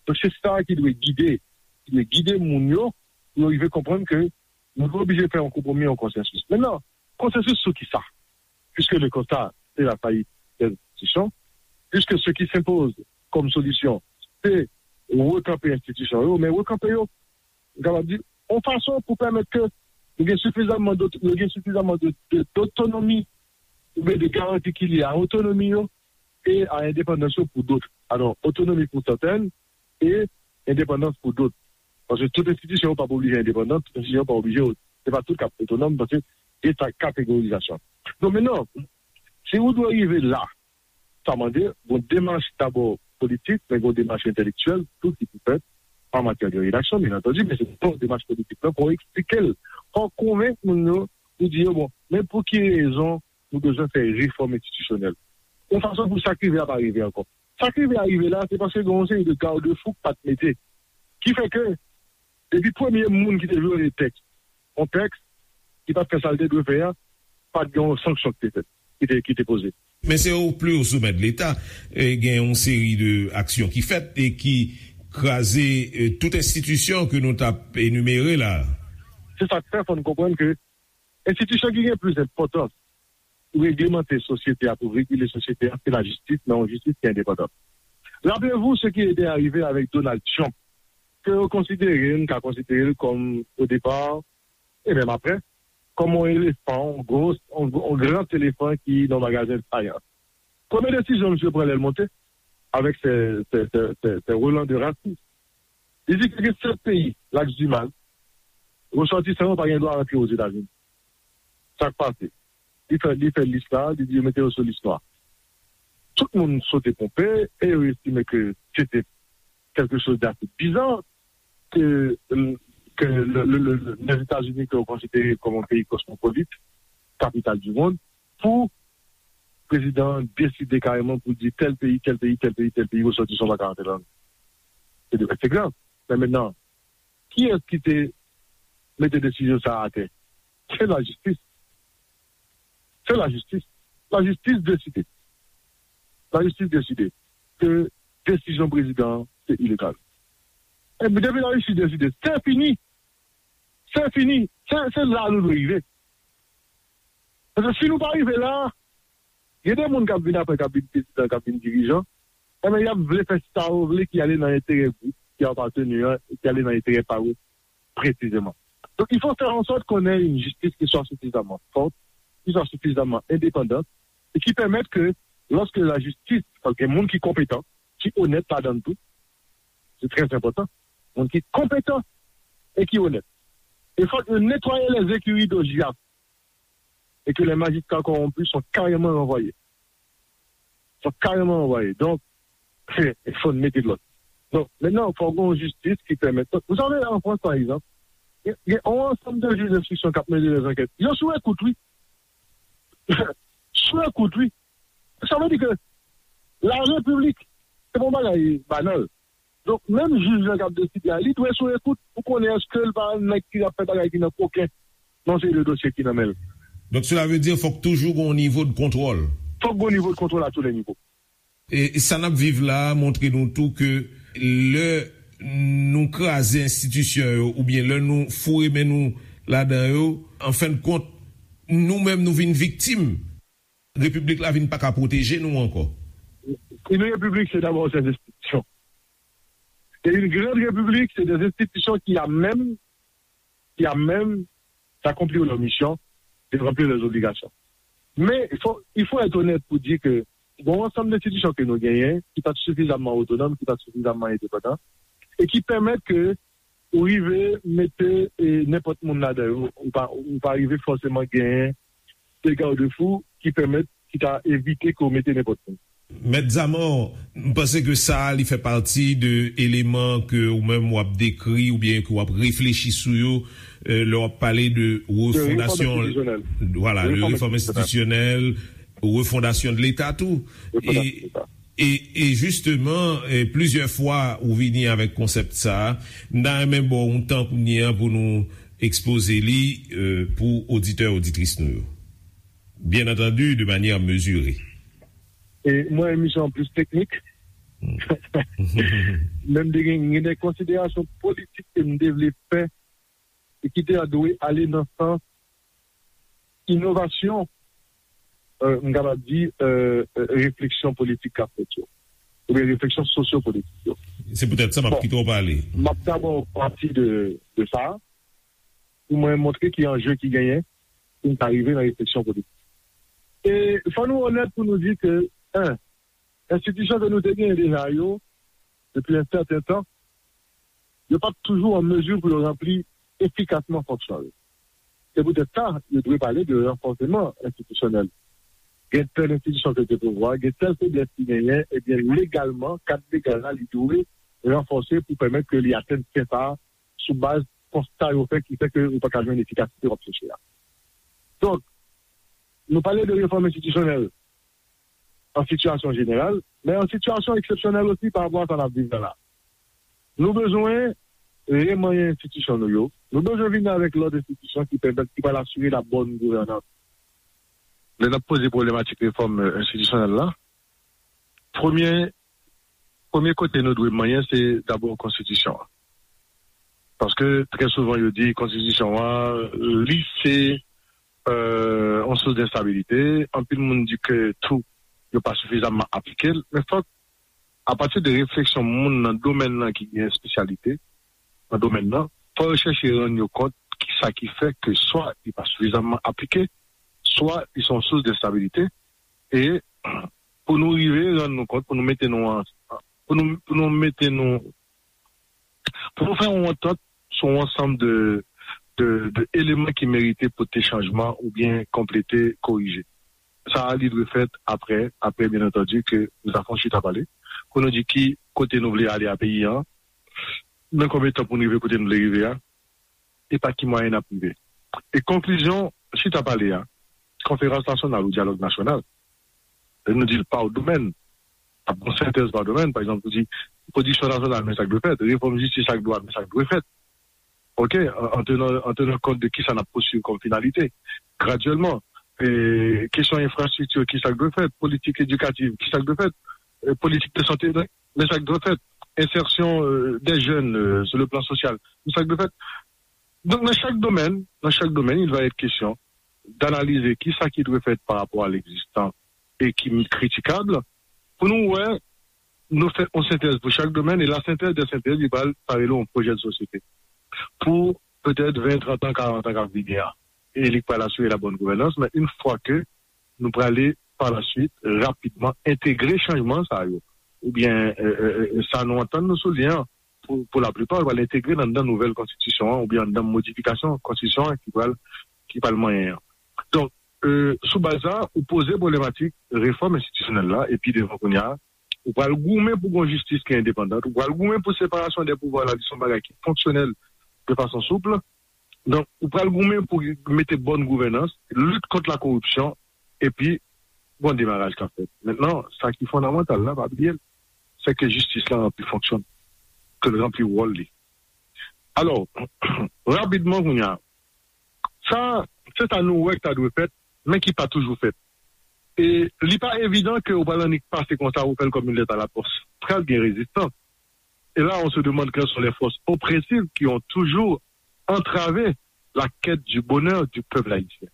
Donk, se sa ki dwe gide, ki dwe gide moun yo, pou yo rive konprann ke nou dwe oblije fè yon konpwomi, yon konsansis. Mentnan, konsansis sou ki sa? Puisque le constat, c'est la faillite des institutions, puisque ce qui s'impose comme solution, c'est rekanpe enstitisyon yo, men rekanpe yo, m kapab di, yon fason pou pèmèt ke nou gen sifizamman dot-, yo gen sifizamman de, de, dotonomi, oubyen de garanti ki lye a otonomi yo e a endepandans yo pou dòt. Alò, otonomi pou sèten e endepandans pou dòt. Paske tout enstitisyon yo p ap oblije endepandan, tout enstitisyon yo p ap oblije, se pa tout k ap otonòm, paske gen sa kategorizasyon. Donk, mentnan, si ou dwe rive la, sa mande yon demach dabò politik, men yon demach entèlektyèl tou ki pou fèt an matyè de redaksyon, byen antandi, men se yon demach politik la, fò w eksplike l, fò w konvenk moun yo, pou di yo, bon, men pou ki rezon nou bezwen fè refòm enstitisyonèl? Yon fason pou sa k rive a pa rive ankò. Sa k rive a rive la, se paske gen yon seri de gadefou k pa t mete. Ki fè ke, depi premye moun ki te vyole tèks, yon tèks ki pa t fè sa l te dwe fè a, pa t gen yon sanksyon ki te fèt, ki te, ki te poze. Men se o pli o somè de Leta, e, gen yon seri de aksyon ki fèt e ki kraze, e, tout enstitisyon ke nou t ap enimere la. Se sa k fè, fò n konprann ke enstitisyon ki gen plis enpòtans pou reglemante sosyete a, pou regile sosyete a, se lajistis, men yon jistis ki endepandan. Rappelez-vous ce qui était arrivé avec Donald Trump, ke yo konsidere, n ka konsidere l kòm, o depa, e menm apre, kòm yon elefan, yon gwo, yon, yon gran elefan ki nan magazen Science. Premye desizyon misye pran lè l monte, avèk se, se, se, se, se relan de rasis. Li di ke gen sèt peyi, Laks di Mal, resòtisan yo pa gen dwa rantre Ozetazini. Sa k pase? Li fè, li fè lis la, li di yo mete yo sou lis nwa. Tout moun sote ponpe e yo estime ke se te quelque chose d'assez bizarre que, que le, le, le, le, les États-Unis, que vous considérez comme un pays cosmopolite, capitale du monde, pou prezidan an deside kareman pou di tèl peyi, tèl peyi, tèl peyi, tèl peyi, resòtisan pa ka antre ladan. Se de, se grav. Men mentnan, kiyès ki te mete desizyon sa a atè? Se lajistis. Se lajistis. Lajistis deside. Lajistis deside ke desizyon prezidan an se ilegal. Epi depi lajistis deside, se fini. Se fini. Se, se la nou dwe rive. Paske si nou pa rive la, Gen de moun k ap vin apre, k ap vin prezidan, k ap vin dirijan, enben, y ap vle fè sa yo vle ki ale nan enterè gwoup ki apateni an, e ki ale nan enterè pa yo presizeman. Donc, il faut faire en sorte qu'on ait une justice qui soit suffisamment forte, qui soit suffisamment indépendante, et qui permette que, lorsque la justice, paske gen moun ki konpetan, ki onèt ladan l tou, c'est très important, moun ki konpetan e ki onèt. Il faut nettoyer les écuries d'Ojias et que les magistrats corrompus sont carrément renvoyés. Sont carrément renvoyés. Donc, il faut mettre de l'ordre. Donc, maintenant, il faut une justice qui permette. Vous savez, en France, par exemple, il y a, il y a un ensemble de juges d'instruction qui ont mené des enquêtes. Ils ont sous écoute, oui. Sou ekout, wi. Sa vle di ke la repiblik, se pa yon bagay banal. Donk, menm jij lan k ap deside a, li dwe sou ekout pou konnen èske l pa nèg ki ap fè bagay ki nan koken nan seri de dosye ki nan men l. Donk, sela vle di, fòk toujou gen yon nivo de kontwòl. Fòk gen yon nivo de kontwòl a tou le nivo. E sa n ap viv la a montre nou tou ke lè nou kraze enstitisyon yo, oubyen lè nou foure men nou ladan yo, an fen de kont, nou menm nou vin viktim. Repiblik la vin pa ka pwoteje nou ankò. Une république, c'est d'abord ses institutions. Et une grande république, c'est des institutions qui, à même, qui, à même d'accomplir leur mission, de remplir leurs obligations. Mais il faut, il faut être honnête pour dire que bon, ensemble d'institutions que nous gagnons, qui pas suffisamment autonomes, qui pas suffisamment indépendants, et qui permettent que ou rive mete e, nenpòt moun ladan yo, ou pa, ou pa rive fòseman genyen de garde-fou ki pèmèt, ki ta evite ke w mete nenpòt moun. Mèt Zamò, m panse ke sa a, li fè pati de eleman ke ou menm w ap dekri oubyen ke w ap reflechi sou yo, e, lè w ap pale de refondasyon, vwala, de refòm enstitisyonèl, refondasyon de Leta tou. E, e, e jisteman, e, plizyè fwa ou vini avèk konsèp sa a, m ta renmen ba w yon tan kounye a pou nou ekspoze li, e, pou oditè, oditris nou yo. Bien entendu, de manière mesurée. E mwen, emisyon an plis teknik. Men m te gen, gen de konsiderasyon politik ke m te vle fè e ki te dwe ale nan sans inovasyon, e, m kapab di, e, e, refleksyon politik k ap fèt yo, oubyen refleksyon sosyopolitik yo. Se poutèt sa m ap kite w pale. M ap dabò pati de, de sa, pou mwen montre ki anje ki genyen, pou n ka rive nan refleksyon politik. E fò nou onèt pou nou di ke, en, enstitisyon ke nou te genyen deja yo, depi yon sèten tan, yo p ap toujou an mezi pou yo ranpli efikasman fonksyon yo. Se poutèt sa, yo dwe pale de ranfòseman enstitisyonèl. Gen tèl enstitisyon ke te pouvwa, gen tèl feblès ki genyen, ebyen, legalman, kad legal la, li dwe ranfòse pou pèmèt ke li atenn sen sa a sou baz konsta yo fè ki fè ke yo pa ka jwenn efikasite w ap chèche a. Donk, nou pale de refòm enstitisyonèl an sitiyasyon jeneral, men an sitiyasyon eksepsyonèl osi pa rapò a sa n ap viv la la. Nou bezwen remanyen enstitisyon nou yo. Nou bezwen vin avèk lòt enstitisyon ki pèmèt, ki pral asire la bòn gouvènans. Lè n ap poze pwoblematik refòm, e, enstitisyonèl la, premye, premye kote nou dwe manyen, se dabò konstitisyon an. Paske trè souvan, yo di konstitisyon an, li se, e, yon sous de enstabilite. Anpil moun di ke tou, yo pa sifizamman aplike l. Men fòk, apati de refleksyon moun nan domèn nan ki gen espesyalite nan domèn nan, fò yo chèche rann yo kont kisa ki fè ke swa li pa sifizamman aplike, swa li se yon sous de enstabilite. E pou nou rive rann nou kont, pou nou mete nou an, pou nou, pou nou mete nou, pou nou fè yon antant sou yon ansanm de, de, de eleman ki merite pote chanjman oubyen konplete, korije. Sa a, li dwe fèt apre, apre, byen antandi, ke nou ta fè yon chita pale, pou nou di ki kote nou vle ale a peyi an, nan konbyen tan pou nou rive kote nou vle rive a, e pa ki mwayen n ap rive. E konklizyon chita pale a, konferans nasyonal ou dyalòg nasyonal, lè nou di l pa domèn, ap gon sentèz pa domèn, pa egzanp, nou di pwodiksyon nasyonal, men sa k dwe fèt, refòm jistis ak dwa, men sa k dwe fèt. Oke, an, an tenan, an tenan kont de kisa n ap pousuiv kòm finalite, gradyèlman. E, kesyon enfrastrikti, kisa k dwe fèt, politik edikativ, kisa k dwe fèt, e, politik de sante, men sa k dwe fèt, ensèsyon, e, dè jèn, e, sou le plan sosyal, men sa k dwe fèt. Donk, nan chak domèn, nan chak domèn, il va être question d'analyser kisa ki dwe fèt par rapport à l'existant e ki kritikab, pou nou wè, nou fè yon sentèz pou chak domèn, e la sentèz de sentèz, li pral, sa rele yon pwojè de sosyete. Pou petèt ven, trant an, karant an k ap vini a. E li pral asire la bonne gouvernance, men yon fwa ke nou prale pa la suite, rapidman, entegre chanjman sa yo, oubyen euh, euh, euh, sa nou antann nou sou li an, pou, pou laplipa, yo pral entegre l anndan nouvèl konstitisyon an, oubyen anndan modifikasyon konstitisyon an ki pral, ki pral manyen an. Donk, euh, sou baz sa, ou poze pwoblematik refòm enstitisyonèl la, epi devan kounye a, ou pral goumen pou gon jistis ki endepandan, ou pral goumen pou separasyon de pouvwa la, ki se yon bagay ki fonksyonèl de fason soup. Donk, ou pral goumen pou mete bòn gouvènans, lit kont la koripsyon, epi gon demaraj k ap fèt. Mentnan, sa ki fondamantal la, pa bliye l, se ke jistis la ranpli fonksyon, ke l ranpli wòl li. Alò, rapidman kounye a, sa, se sa nou wè k ta dwe fèt, men ki pa toujou fèt. E li pa evidan ke ou pral annik pase konsa, ou fè l kòm yon lèt a la pòs. Pral gen rezistans. Et là, on se demande quelles sont les forces oppressives qui ont toujours entravé la quête du bonheur du peuple haïtien.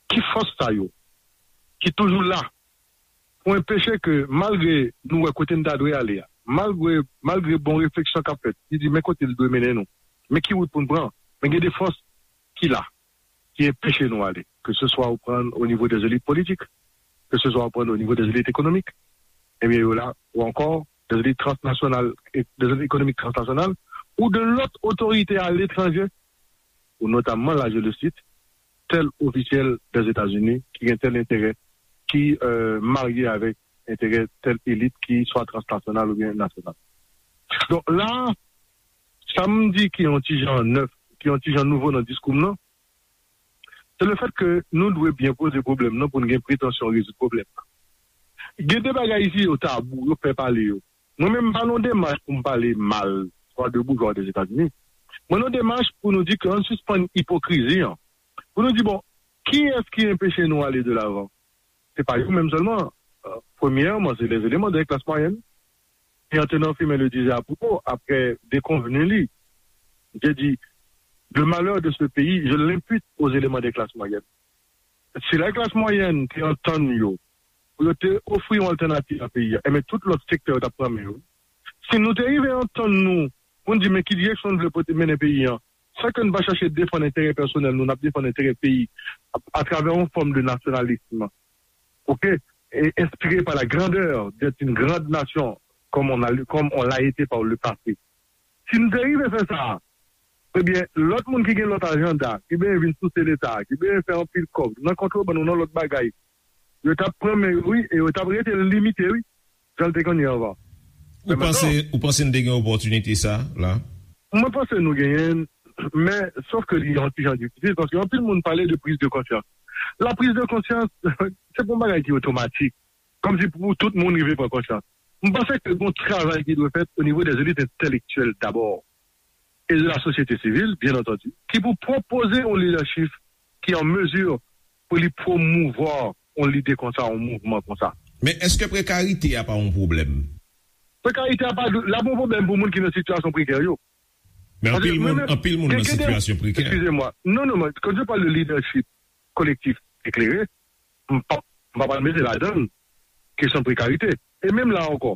Ki fòs sa yo ki toujou la pou enpeche ke, malgre nou wè kote n ta dwe ale a, malgre, malgre bon refleksyon k ap fèt, ki di men kote l dwe mennen nou, men ki wout pou n pran, men gen de fòs ki la, ki enpeche nou ale, ke se swa ou pran o nivo dè elit politik, ke se swa ou pran o nivo dè elit ekonomik, ebyen yo la, ou ankò dè elit transnasyonal, dè elit ekonomik transnasyonal, ou de lòt otorite aletranje, ou notamman, la je le cite, tèl ofisyèl dè Etazini ki gen tèl enterè, ki euh, marye avèk enterè tèl elit ki swa transnasyonal oubyen nasyonal. Donk la, sa m di ki yon ti jan nèf, ki yon ti jan nouvo nan diskou m nan, se le fèt ke nou dwe byen poze pwoblèm nan pou n gen pretansyon rezoud pwoblèm nan. Gen de bagay isi yo tabou, yo pè pale yo. Mwen menm m pa nan demach pou m pale mal, swa de boujwa de Etazini. Mwen nan demach pou nou di ke ann sispann ipokrizi an. Pou nou di, bon, kiyès ki enpeche nou ale de lavan? Se pa yo menm sèlman. Euh, premyèman, se les éléments de la classe moyenne. Et en tenant firme le disait à propos, après déconvenu li, j'ai dit, le malheur de ce pays, je l'impute aux éléments des classes moyennes. Si la klas mwayèn te antann yo, pou yo te ofri yon altènativ a peyi a, enben tout lòt sektè yo t ap pran men yo. Si nou te rive antann nou pou n di men ki direksyon n vle pote mennen peyi an, san ke n pa chache defann enterè pèsonèl nou, n ap defann enterè peyi atravè yon fòm de nasyonalism, oke, e enspire pa la grandeur d'être une grande nation comme on a, comme on l'a été par le passé. Si n te rive fè sa, ebyen, lòt moun ki gen lòt ajanda, ki benyen vin souse Leta, ki benyen fè anpil kòb nan kontrebann ou nan lòt bagay, yo t ap pran men yo, wi, e yo t ap rete limite, wi, jan l te konn ye anvan. Ou panse, ou panse n te gen opòtinite sa la? Mwen panse nou genyen l, men sòf ke li yon ti jan difisil, paske anpil moun pale de priz de konsyans. La priz de konsyans, se pa yon bagay ki otomatik. Kòmsi pou tout moun rive pran konsyans. M panse ke gon travay ki dwe fèt o nivo dè elit entèlektyèl dabò, e de la sosyete sivil, byen antandi, ki pou pwopoze yon lidèchip ki an mezi pou li pwomouvwa yon lide konsa, yon mouvman konsa. Men èske prekarite a pa yon pwoblèm? Prekarite a pa, la pa yon pwoblèm pou moun ki nan sitiyasyon prekè yo. Men anpil moun, anpil moun nan sitiyasyon prekè. Excusez-moi. Non, non, non. Quand je parle de leadership collectif éclairé, m pa, m pa pral mete ladan l kesyon prekarite. E menm la ankò,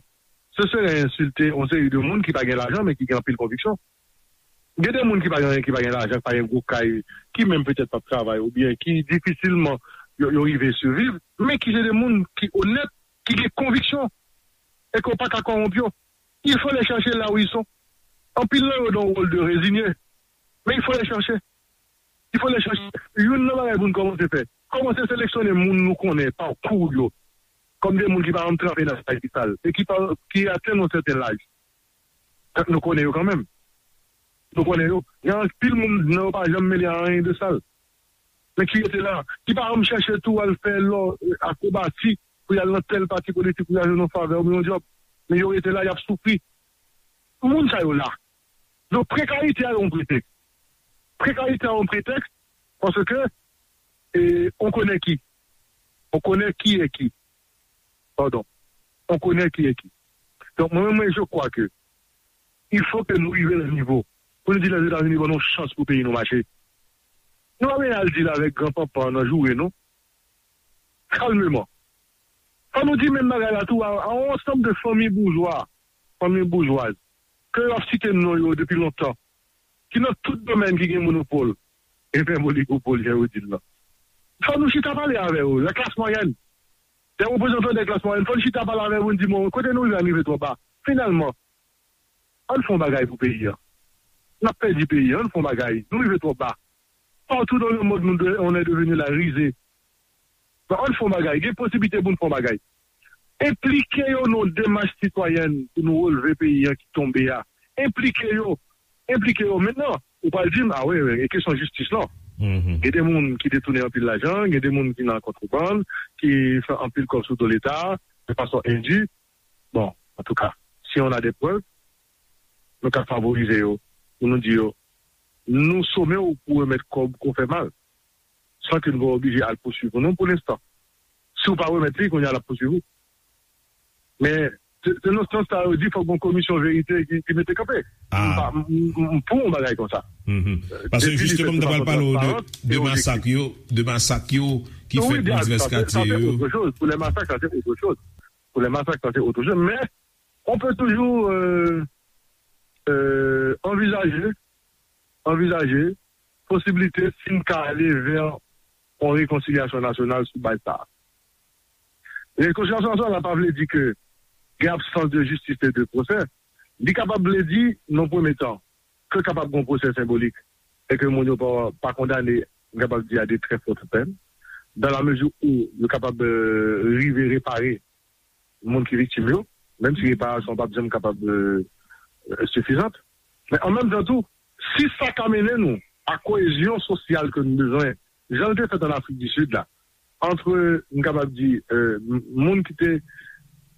se sere ensilte yon seri de moun ki pa gen lajan, men ki gen anpil konviksyon. Gen de moun ki pa gen anyen, ki pa gen lajan, ki pa gen gwo kay, ki menm petèt p ap travay, oubyen ki difisilman yo, yo rive siviv, men ki se de moun ki onèt, ki gen konviksyon, e ke w pa ka kòwonp yo. Il faut les chercher là où ils sont. Anpil nan yo dans un rôle de résigné. Men il faut les chercher. Il faut les chercher. Youn nan bagay pou n kòmanse fè, kòmanse seleksyone moun nou konnen pakou yo kòm de moun ki pa janm tranpe nan sa ki sal e ki pa, ki atenn yon sèten laj. Tank nou konnen yo kanmenm. Nou konnen yo. Gen anpil moun nan yo pa janm mele a anyen de sal. Men ki rete la, ki pa janm chèche tou al fè lò, akwobasi pou y al nan tèl pati politik pou y al jwenn yon favè oubyen yon djòb. Men yo rete la, y ap soufri. Moun sa yo la. Donk, prekarite a yon pretèks. Prekarite a yon pretèks paske e, on connaît qui. On connaît qui est qui. Pardon. On connaît qui est qui. Donk, mwen, mwen, je crois que il faut que nou rive nan nivo pou nou di Lèzetazini ban nou chans pou peyi nou mache. Nou pa bezwen al dil avèk granpanpan nan joure, non. Kalmeman. Fò nou di menm bagay la tou a, a yon ansanm de fanmi boujwa, fanmi boujwaz, ke yo ap site non yo depi lontan, ki nan tout domèn ki gen monopòl, e fè oligopòl, jan yo di l lan. Fò nou chita pale avè yo, la klas mwayèn, de reprezantan de klas mwayèn, fò nou chita pale avè yo, nou di, bon, kote nou rive, nou rive twò ba. Finalman, ann fè yon bagay pou peyi a. N ap pèdi peyi a, ann fè yon bagay. Nou rive twò ba. Partout dans le monde, nou de, on est devenu la risée. Bon, ann fè yon bagay. Gen posiblite pou n fè yon bagay. Enplike yo nan yon demach sitwayèn pou nou releve peyi a ki tonbe a. Enplike yo. Enplike yo. Mentnan, ou pral di m, a wi, wi, e kesyon jistis lan. Gen de moun ki detounen anpil lajan, gen de moun ki nan kontrebann, ki fè anpil kòb sou do Leta, de fason endi. Bon, antouka, si on a de prèv, nou ka favorize yo, pou nou di yo, nou some w pou remèt kòb ke w fè mal, san ke nou pa oblije al pouswiv ou non pou lenstan. Si w pa remèt li, kounye a l ap pouswiv ou. Men, se se nan sans sa yo di fòk gon komisyon verite ki, ki mete kanpe. M pa- m- m- m pou yon bagay konsa. Paske jisteman, m ta pral pale w de, de masak yo, de masak yo ki fèt nan divès katye yo. Pou lè masak, sa se otre choz. Pou lè masak, sa se otre choz. Men, on peut toujours euh, euh, anvizaje, anvizaje posiblite si n ka ale vè yon rekonsilyasyon nasyonal sou baz sa a. Rekonsilyasyon nasyonal la pa vle di ke gen absans de jistis e de pwosè. Li kapab vle di, nan premye tan, ke kapab gen yon pwosè senbolik e ke moun yo pa, pa kondane, m kapab di, a de trè fòt pèn, dans la mesure où yo kapab euh, rive repare moun ki viktim yo, menm si reparasyon p ap janm kapab euh, euh, sifizant. Men an menm tan tou, si sa ka mennen nou a koyezyon sosyal ke nou bezwen, jan l te fèt an Afrik di Sid la, ant, m kapab di, euh, m- moun ki te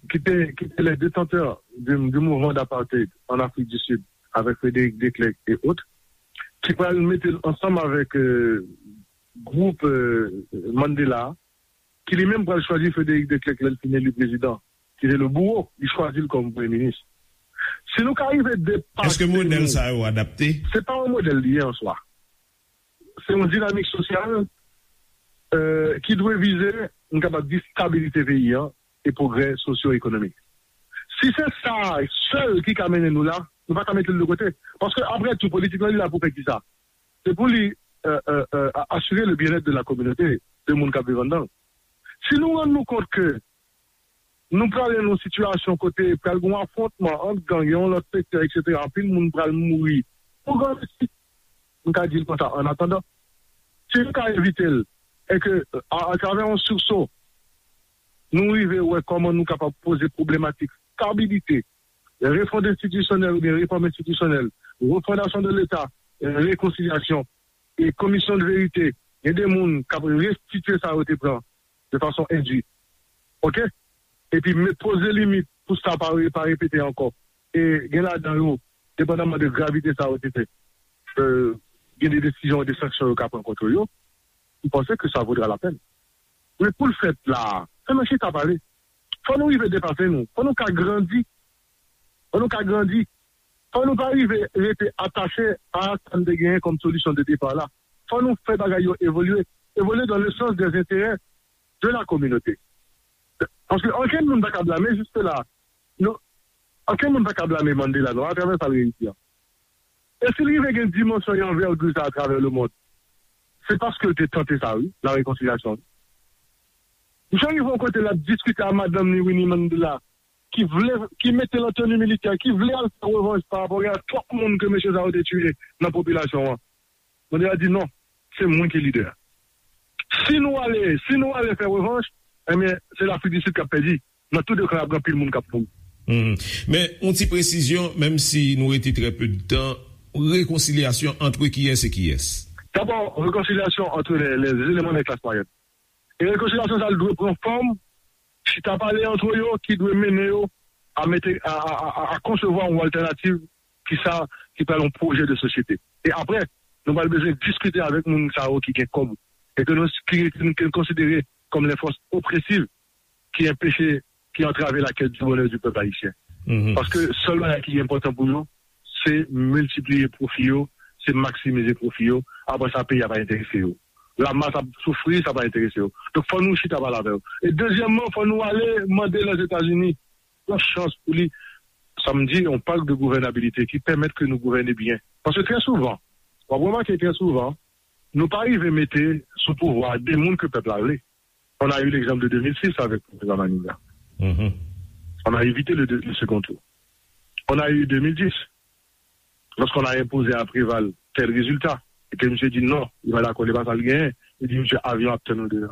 ki te ki te les détenteurs du, du mouvement d'apartheid en Afrique du Sud avec Frédéric Declercq et autres, ki pral mete l ansanm avèk euh, gwoup euh, Mandela, ki li menm pral chwazi Frédéric Declercq lè l fin eli prezidan, ki te le bouro, li chwazi l kòm premye minis. Si nou ka rive depase... Èske modèl sa yo adapte? Se pa yon modèl li ye an swa. Se yon dinamik sosyal euh, ki dwe vize, m kapab di, stabilite peyi an e pwogrè sosyo-ekonomik. Si se sa sèl ki ka mennen nou la, nou pa ka mete l de kote. Paske, apre tou, politik lan li la pou fè kisa? Se pou li euh, euh, euh, asire le bien-être de la communauté, de moun k ap viv anndan l. Si nou rann nou kont ke nou prale nan yon sitiyasyon kote pral gen yon afwontman ant gang, yon lòt sektè, etsetera, anpil moun pral mouri pou grandisi. M ka di l konsa, an atandan, si nou ka evite l, e ke, a, atravè yon sursaut, nou rive wè kòman nou kapab poze pwoblematik stabilite, refond enstitisyonèl oubyen refòm enstitisyonèl, refondasyon de Leta, rekonsilyasyon, e komisyon de verite, gen de moun k ap restitye sa yo te pran de fason endi. Oke? Epi met poze limit pou sa pa re- pa repete ankò. E gen ladan yo, depandaman de gravite sa yo te fè, euh, gen de desizyon, de sanksyon yo ka pran kont yo. M panse ke sa vodra la pèn. Men pou l fèt la, fò nou chita pale. Fò nou rive depase nou. Fò nou ka grandi. Fò nou ka grandi. Fò nou pa rive rete atache a sa n te genyen kòm solisyon de depa la. Fò nou fè bagay yo evolye. Evolye dans le sens des intérêts de la communauté. Paske ankenn moun pa ka blame jiske la. Nou, ankenn moun pa ka blame Mandela non, atravè sa l reyisi an. E si l rive gen dimansyon e anvègi sa atravè le mond, se paske l te tante sa, wi, la rekonsilyasyon. Misye rive yon kote l ap diskite a madanm li, Winnie Mandela, ki vle, ki mete l an teni militè, ki vle al fè revanj pa rapò a twòp moun ke mesye sa yo te tiye nan popilasyon an. Mandela di non, se mwen ki lidè. Si nou ale, si nou ale fè revanj, ebyen, se Lafrik di Sid k ap pèdi. Nan tou de ka, ap gen anpil moun k ap mouri. Men, yon ti presizyon, menm si nou rete trè pe de tan, rekonsilyasyon antre kiyès e kiyès? Dabò, rekonsilyasyon antre les, les éléments de classe moyenne. E rekonsilyasyon sa a dwe pran fòm chita pale antre yo ki dwe mennen yo a mete a, a, a, a, a konsevwa yon altènativ ki sa ki pral yon pwojè de sosyete. E apre, nou pral bezwen diskite avèk moun sa yo ki gen kòb e ke nou ki, ki, ki n konsidere kòm les forces oppressives ki enpeche, ki antrave la quête du bonheur du peuple haïtien. Paske sèl bagay ki enpòtan pou yo, se miltipliye pwofi yo, se maksimize pwofi yo. Apre sa, peyi a pa enterese yo. Lamas ap soufri, sa pa enterese yo. Donk, fò nou chita pale avè yo. E dezyèmman, fò nou ale mande Lèzetazini yon chans pou li, sa m di, yon pak de gouvènabilite ki pèmèt ke nou gouvène byen. Paske trè souvan, w ap remake trè souvan, nou pa rive mete sou pouvwa de moun ke pèp la vle. On a eu l'exemple de deux mille six avec Président Manigat. On a évité le, deux- le second tour. On a eu deux mille dix, lorsqu'on a imposé à Préval tel résultat, et que monsieur dit non, il va d'accord, il va pas le gagner, il dit monsieur avion ap tann nou deja.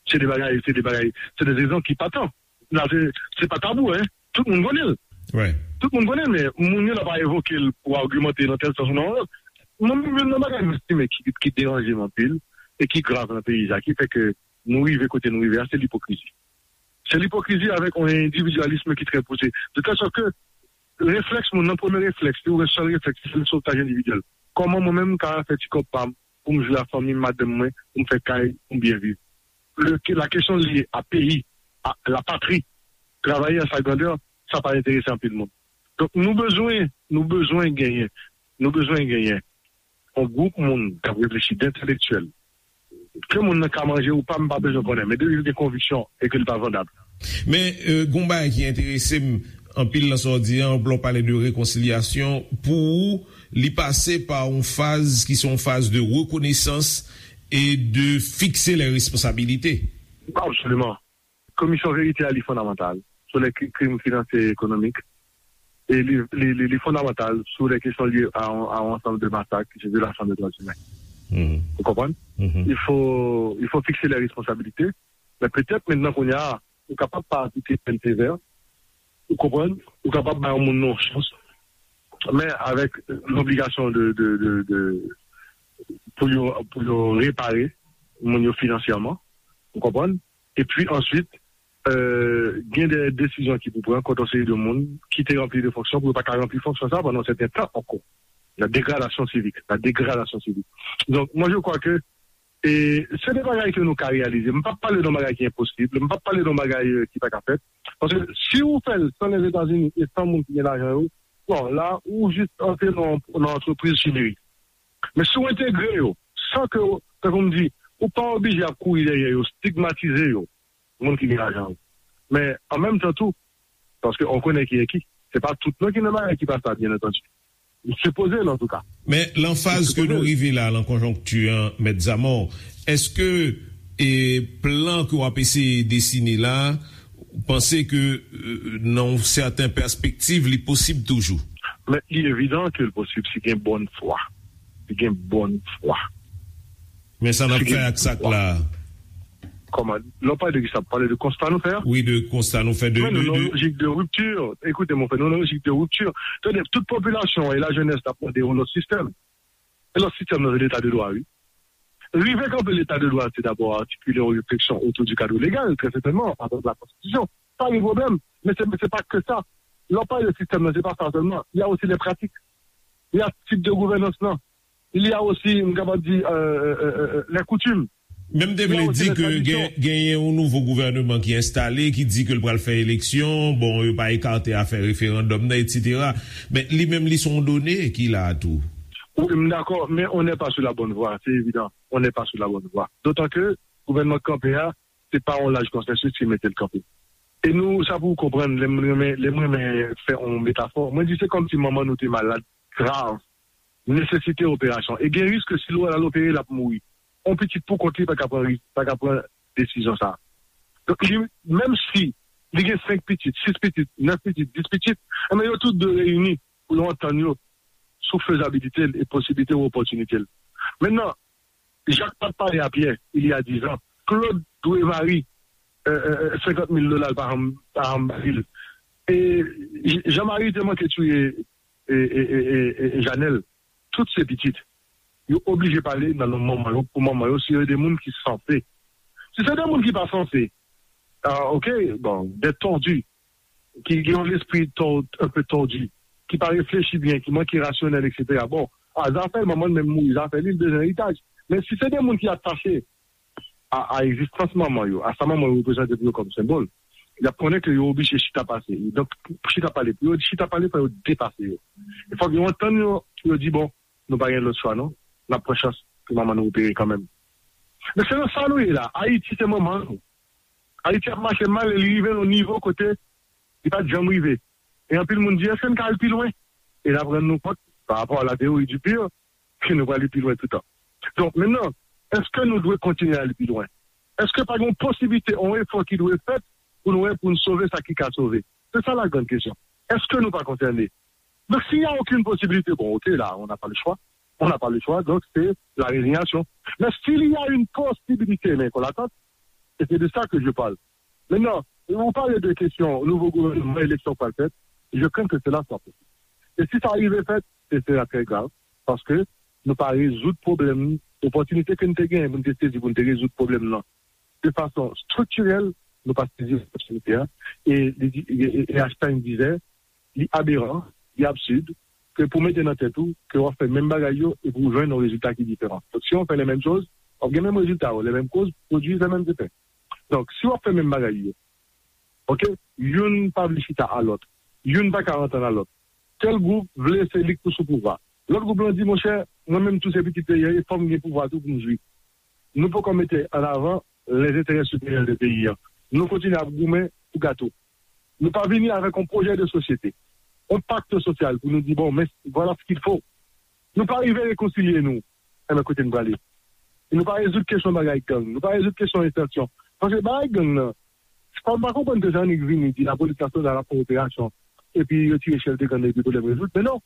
Se de bagay, se de bagay, se de rezon ki pa tan. La, se, se pa tabou, hein. Tout moun konnen l. Tout moun konnen l, men moun yo la pa evoke l pou agimante nan tèl sans ou nan yon lòt. Mwen menm, youn nan bagay m estime ki, ki deranje m anpil e ki grav nan peyi sa, ki fè ke nou rive kote nou rive a, se lipokrizi. Se lipokrizi avèk yon endividyalis ki trè pouse. De tèl sòt ke reflèks moun nan, premye reflèks, li yon sèl reflèks, se sotaj endividyèl. Kòman mwen menm m ka fè ti kòb pa m pou m jwe ak fanmi m, madanm mwen, pou m fè kay, pou m byen viv? Le, la kesyon lye a peyi, a la patri, travay an sa grandè, sa pa enterese anpil moun. Donk, nou bezwen, nou bezwen genyen, nou bezwen genyen yon gwoup moun k ap reflechi, d entelektyèl. Ke moun nan ka manje ou pa, m pa bezwen konnen, men depi l gen konviksyon e ke l pa vandab. Men, euh, gon bagay ki enterese m anpil nan sa w di an, lè w pale de rekonsilyasyon, pou ou, li pase pa yon faz ki se yon faz de rekonesans e de fikse lè responsabilite. Absoliman. Komisyon verite a, li fondamantal sou lè kri- krim finansyè e ekonomik. E li, li, li, li fondamantal sou lè kesyon lye a, a yon ansanm de masak ki se vyolasyon de dwa imen. Ou konprann? Il faut, il faut fixer les responsabilités. Men petèt, mentnan, kounye a, ou kapab pa aplike pèn sevè. Ou konprann? Ou kapab bay yon moun nan yon chans. Men avèk lobligasyon de, de, de, de, pou yo, pou yo repare moun yo finansyèman. Ou konprann? Epi answit, euh, gen de desizyon ki pou pran kont yon seri de moun ki te ranpli de fonksyon pou yo pa ka ranpli fonksyon sa pandan yon sèten tan ankò. La dégradation civique, la dégradation civique. Donc, moi, je crois que, e, se de bagay ke nou ka reyalize. M p ap pale de yon bagay ki enposib, m p ap pale de yon bagay, euh, ki pa ka fèt. Paske si ou fè l san Lèzetazini e san moun ki gen lajan yo, bon, la, ou jis antre nan, nan antrepriz chimerik. Men si w entegre yo, san ke, tankou m di, ou pa oblije ap kouri dèyè yo, stigmatize yo, moun ki gen lajan yo. Men, an menm tan tou, paske on konnen ki e ki, se pa tout non ki nan bagay ki pa sa, byen antandi. Li sipoze l, antouka. Men, lan faz ke nou rive la, lan konjonkti an, Mèt Zamò, èske, e, plan ke w ap eseye desine la, ou panse ke, euh, nan yon sèten pèspektiv, li posib toujou? Men li evidan ke l posib si gen bòn fwa. Si gen bòn fwa. Men sa n ap fè ak sa k la a? Kòman? Lè w pale de kisa? Pale de konsta nou fè a? Wi, de konsta nou fè. De, men nou nan lojik de ripti. Ekoute, mon frè, nou nan lojik de ripti. Tande, tout popilasyon e lajenès t ap mande yon lòt sistèm. E lòt sistèm nan, se leta de dwa, wi. Rive kanpe leta de dwa, se dabò atikile yon refleksyon otou di kad legal, trè sètènman, avèk la konstitisyon. Pa gen pwoblèm. Men se, se pa ke sa. Lè w pale de sistèm nan, se pa sa sèlman. Il y a aussi les pratiques. Il y a tip de gouvènans nan. Il y a aussi, m kapab di, euh, euh, euh, euh, les coutumes. Men m te vle di ke gen, genyen yon nouvo gouvènman ki enstale, ki di ke l pral fè eleksyon, bon, yo pa ekate afè referandòm nan, etsetera. Men li menm, li se yon done ki la a tou. Wi, m dakò, men on n'est pas sur la bonne voie, c'est évident. On n'est pas sur la bonne voie. Dotan ke gouvènman k kanpe a, se pa yon laj konsèsus ki mete l kanpe. E nou, sa pou w konprann, lè m renmen, lè m renmen fè yon metafò, mwen di se kòmsi manman nou te malad, grav, nesesite operasyon. E gen risk ke si l al opere, l ap mouri. On pitit pou kont li pa ka pran risk, pa ka pran desizyon sa a. Donk, li, menm si li gen senk pitit, sis pitit, nèf pitit, dis pitit, enben yo tout dwe reyini pou yo antann yo sou fezabilite l e posiblite ou opòtinite l. Mentnan, Jak pa t pale a Pyè, il y a dix ans. Claude dwe Marie, euh, euh, euh, senkant mil dola, l pa janm, pa janm ba li l. E J- Jean Marie te manke touye e, e, e, e, e, Janèl. Tout se pitit. Yo oblije pale nan non manman yo, pou manman yo, si yo de moun ki sanse. Si se de moun ki pa sanse, ah, ok, bon, des tordus, ki gen yon lespri tò- un peu tordu, ki pa reflechi byen, ki manke rasyonèl, etsetera. Bon, a zafè l, manman l menm mouri, zafè li, l bezwen eritaj. Men si se de moun ki atache a, a egzistans manman yo, a sa manman yo reprezante pou yo kòm senbòl, y ap konnen ke yo oblije chita pase. Donk, pou chita pale, pou yo chita pale, fò yo depase yo. E fòk yo antann yo, pou yo di, bon, nou pa gen lòt chwa, non. N ap pran chans pou manman nou opere kanmenm. Men se nan sa nou ye la. Ayiti se manman nou. Ayiti ap mache mal e li rive nan yon nivo kote li pa t janm rive. E anpil moun di, èske n ka al pi lwen? E n ap rann nou kont, pa rapò a la théorie du pire, ke nou pral pi lwen toutan. Donk, mentnan, èske nou dwe kontinye al pi lwen? Èske pa gen yon posiblite, yon efò ki dwe fèt pou nou wè, pou n sove sa ki ka sove? Se sa la grande question. Èske nou pa konsène? Donk, s'il y a aucune possibilité, bon, ok, là, on n'a pas le choix. On n'a pas le choix, donc c'est la résignation. Mais s'il y a une possibilité, men kon latant, e se de sa ke je parle. Mentnan, ou pale de kesyon nouvo gouvènman, eleksyon k pral fèt, je crains que cela soit possible. E si sa rive fèt, se sera très grave, paske nou pa rezoud pwoblèm, opòtinite ke n te genyen pou n te sezi, pou n te rezoud pwoblèm nan de fason striktirèl, nou pa sezi opòtinite a. E, li di- e, e, e Einstein disait, li aberan, li absid, ke pou mete nan tèt ou ke w ap fè menm bagay yo e pou w jwenn yon rezilta ki diferan. Donk, si w fè les mêmes choses, w ap gen menm rezilta yo, les mêmes causes produisent les mêmes effets. Donk, si w ap fè menm bagay yo, ok, youn pa vle chita a lòt, youn pa ka antann a lòt. Tèl gwoup vle se li k pou sou pouvwa. Lòt gwoup lan di, monchè, mwen menm tou se pitit peyi an, e fò m gen pouvwa tou pou m jwi. Nou poko mete an avan les intérêts supérieurs de peyi an. Nou kontinye ap goumen pou gato. Nou pa vini avèk yon pwojè de sosyete, yon pakt sosyal pou nou di, bon, men voilà ce qu'il faut. Nou pa rive rekonsilye nou. Enben, kote n prale? E nou pa rezoud kesyon bagay gang. Nou pa rezoud kesyon entansyon. Paske bagay gang nan, pa, m pa konprann ke jan nèg vini di lapolis nasyonal ap fè operasyon, epi yo tire chèf de gang nan, epi pwoblèm rezoud. Men non.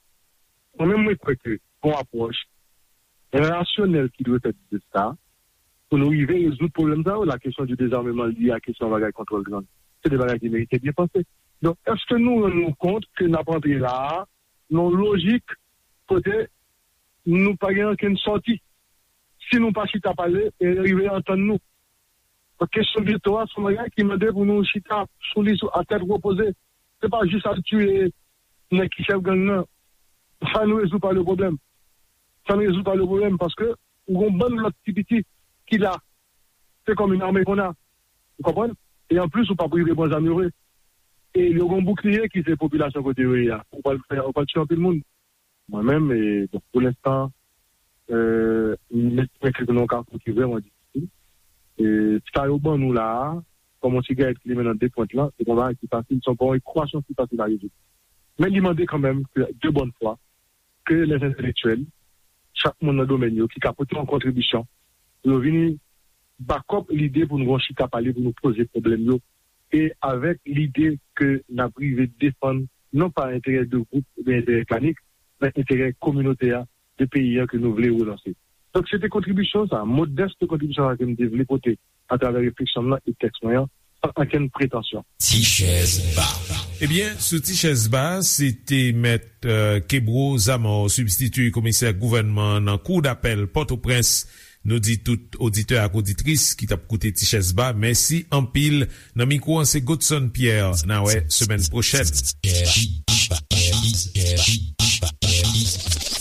Mwen menm, mwen kwè ke gon apwòch rasyonèl ki dwe fèt de sa, pou nou rive rezoud pwoblèm sa yo, la kesyon di dezarmeman lye a kesyon bagay kontwòl gang. Se de bagay ki merite byen panse. Donk, èske nou rann nou kont ke n ap antre la a, nan lojik kote nou pa gen ankenn sòti? Si nou pa chita pale e rive antann nou. Donk, kesyon geto a, se yon bagay ki mande pou nou chita sou li sou, a tèt repoze. Se pa jis al tiye nèg ki chèf gang nan. Sa n rezoud pa le pwoblèm. Sa n rezoud pa le pwoblèm, paske ou gon bann lòt ti piti ki la. Se kòm yon ame konn a. Ou konprann? E anplis, ou p ap rive pran zam yo vre. E yo gon boukliye ki se popilasyon kote yo ye a. Ou pral fè, ou pral tiye anpil moun. Mwen menm, e, bon, pou lenstan, e, m estime ke nou nan yon kafou ki vrèman difisil. E, sa yo ban nou la a, kòm yon sigarèt ki limen nan de pwent lan, se pa yon bagay ki fasil, se pa yon ekwasyon ki fasil a rezoud. Men li mande kanmenm ke de bòn fwa, ke les intellectuels, chak moun nan domèn yo, ki ka pote yon kontribisyon, pou yo vini back up lide pou nou gon chita pale, pou nou poze pwoblèm yo, e avèk lide ke n ap rive defann non pa enterè de gwoup oubyen enterè etnik, men enterè kominote a, de peyi a ke nou vle relanse. Donk, se te kontribisyon sa, modès kontribisyon sa ke m te vle pote atravè refleksyon m nan e tèks mwen an, san ankenn pretansyon. Ti chèz ba. Ebyen, sou Ti chèz ba, se te mèt, euh, Kebro Zamor, sibstitye komisè gouvènman nan Kou dapèl Pòtoprens. Nou di tout oditè ak oditris ki t ap koute Ti chèz ba, mèsi anpil. Nan mikwo an, se Godson Pierre. N a wè semèn pwochèn.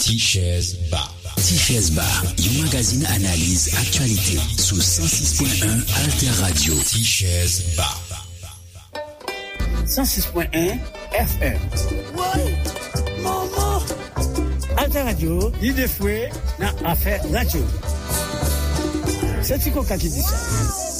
Ti chèz ba. Ti chèz ba, yon magazin analiz aktyalite sou san sis pwen en Alter Radio. Ti chèz ba. San sis pwen en F M. Woy! Manman! Alter Radio, lide fwe nan afè radyo. Se Ti Koka ki di sa.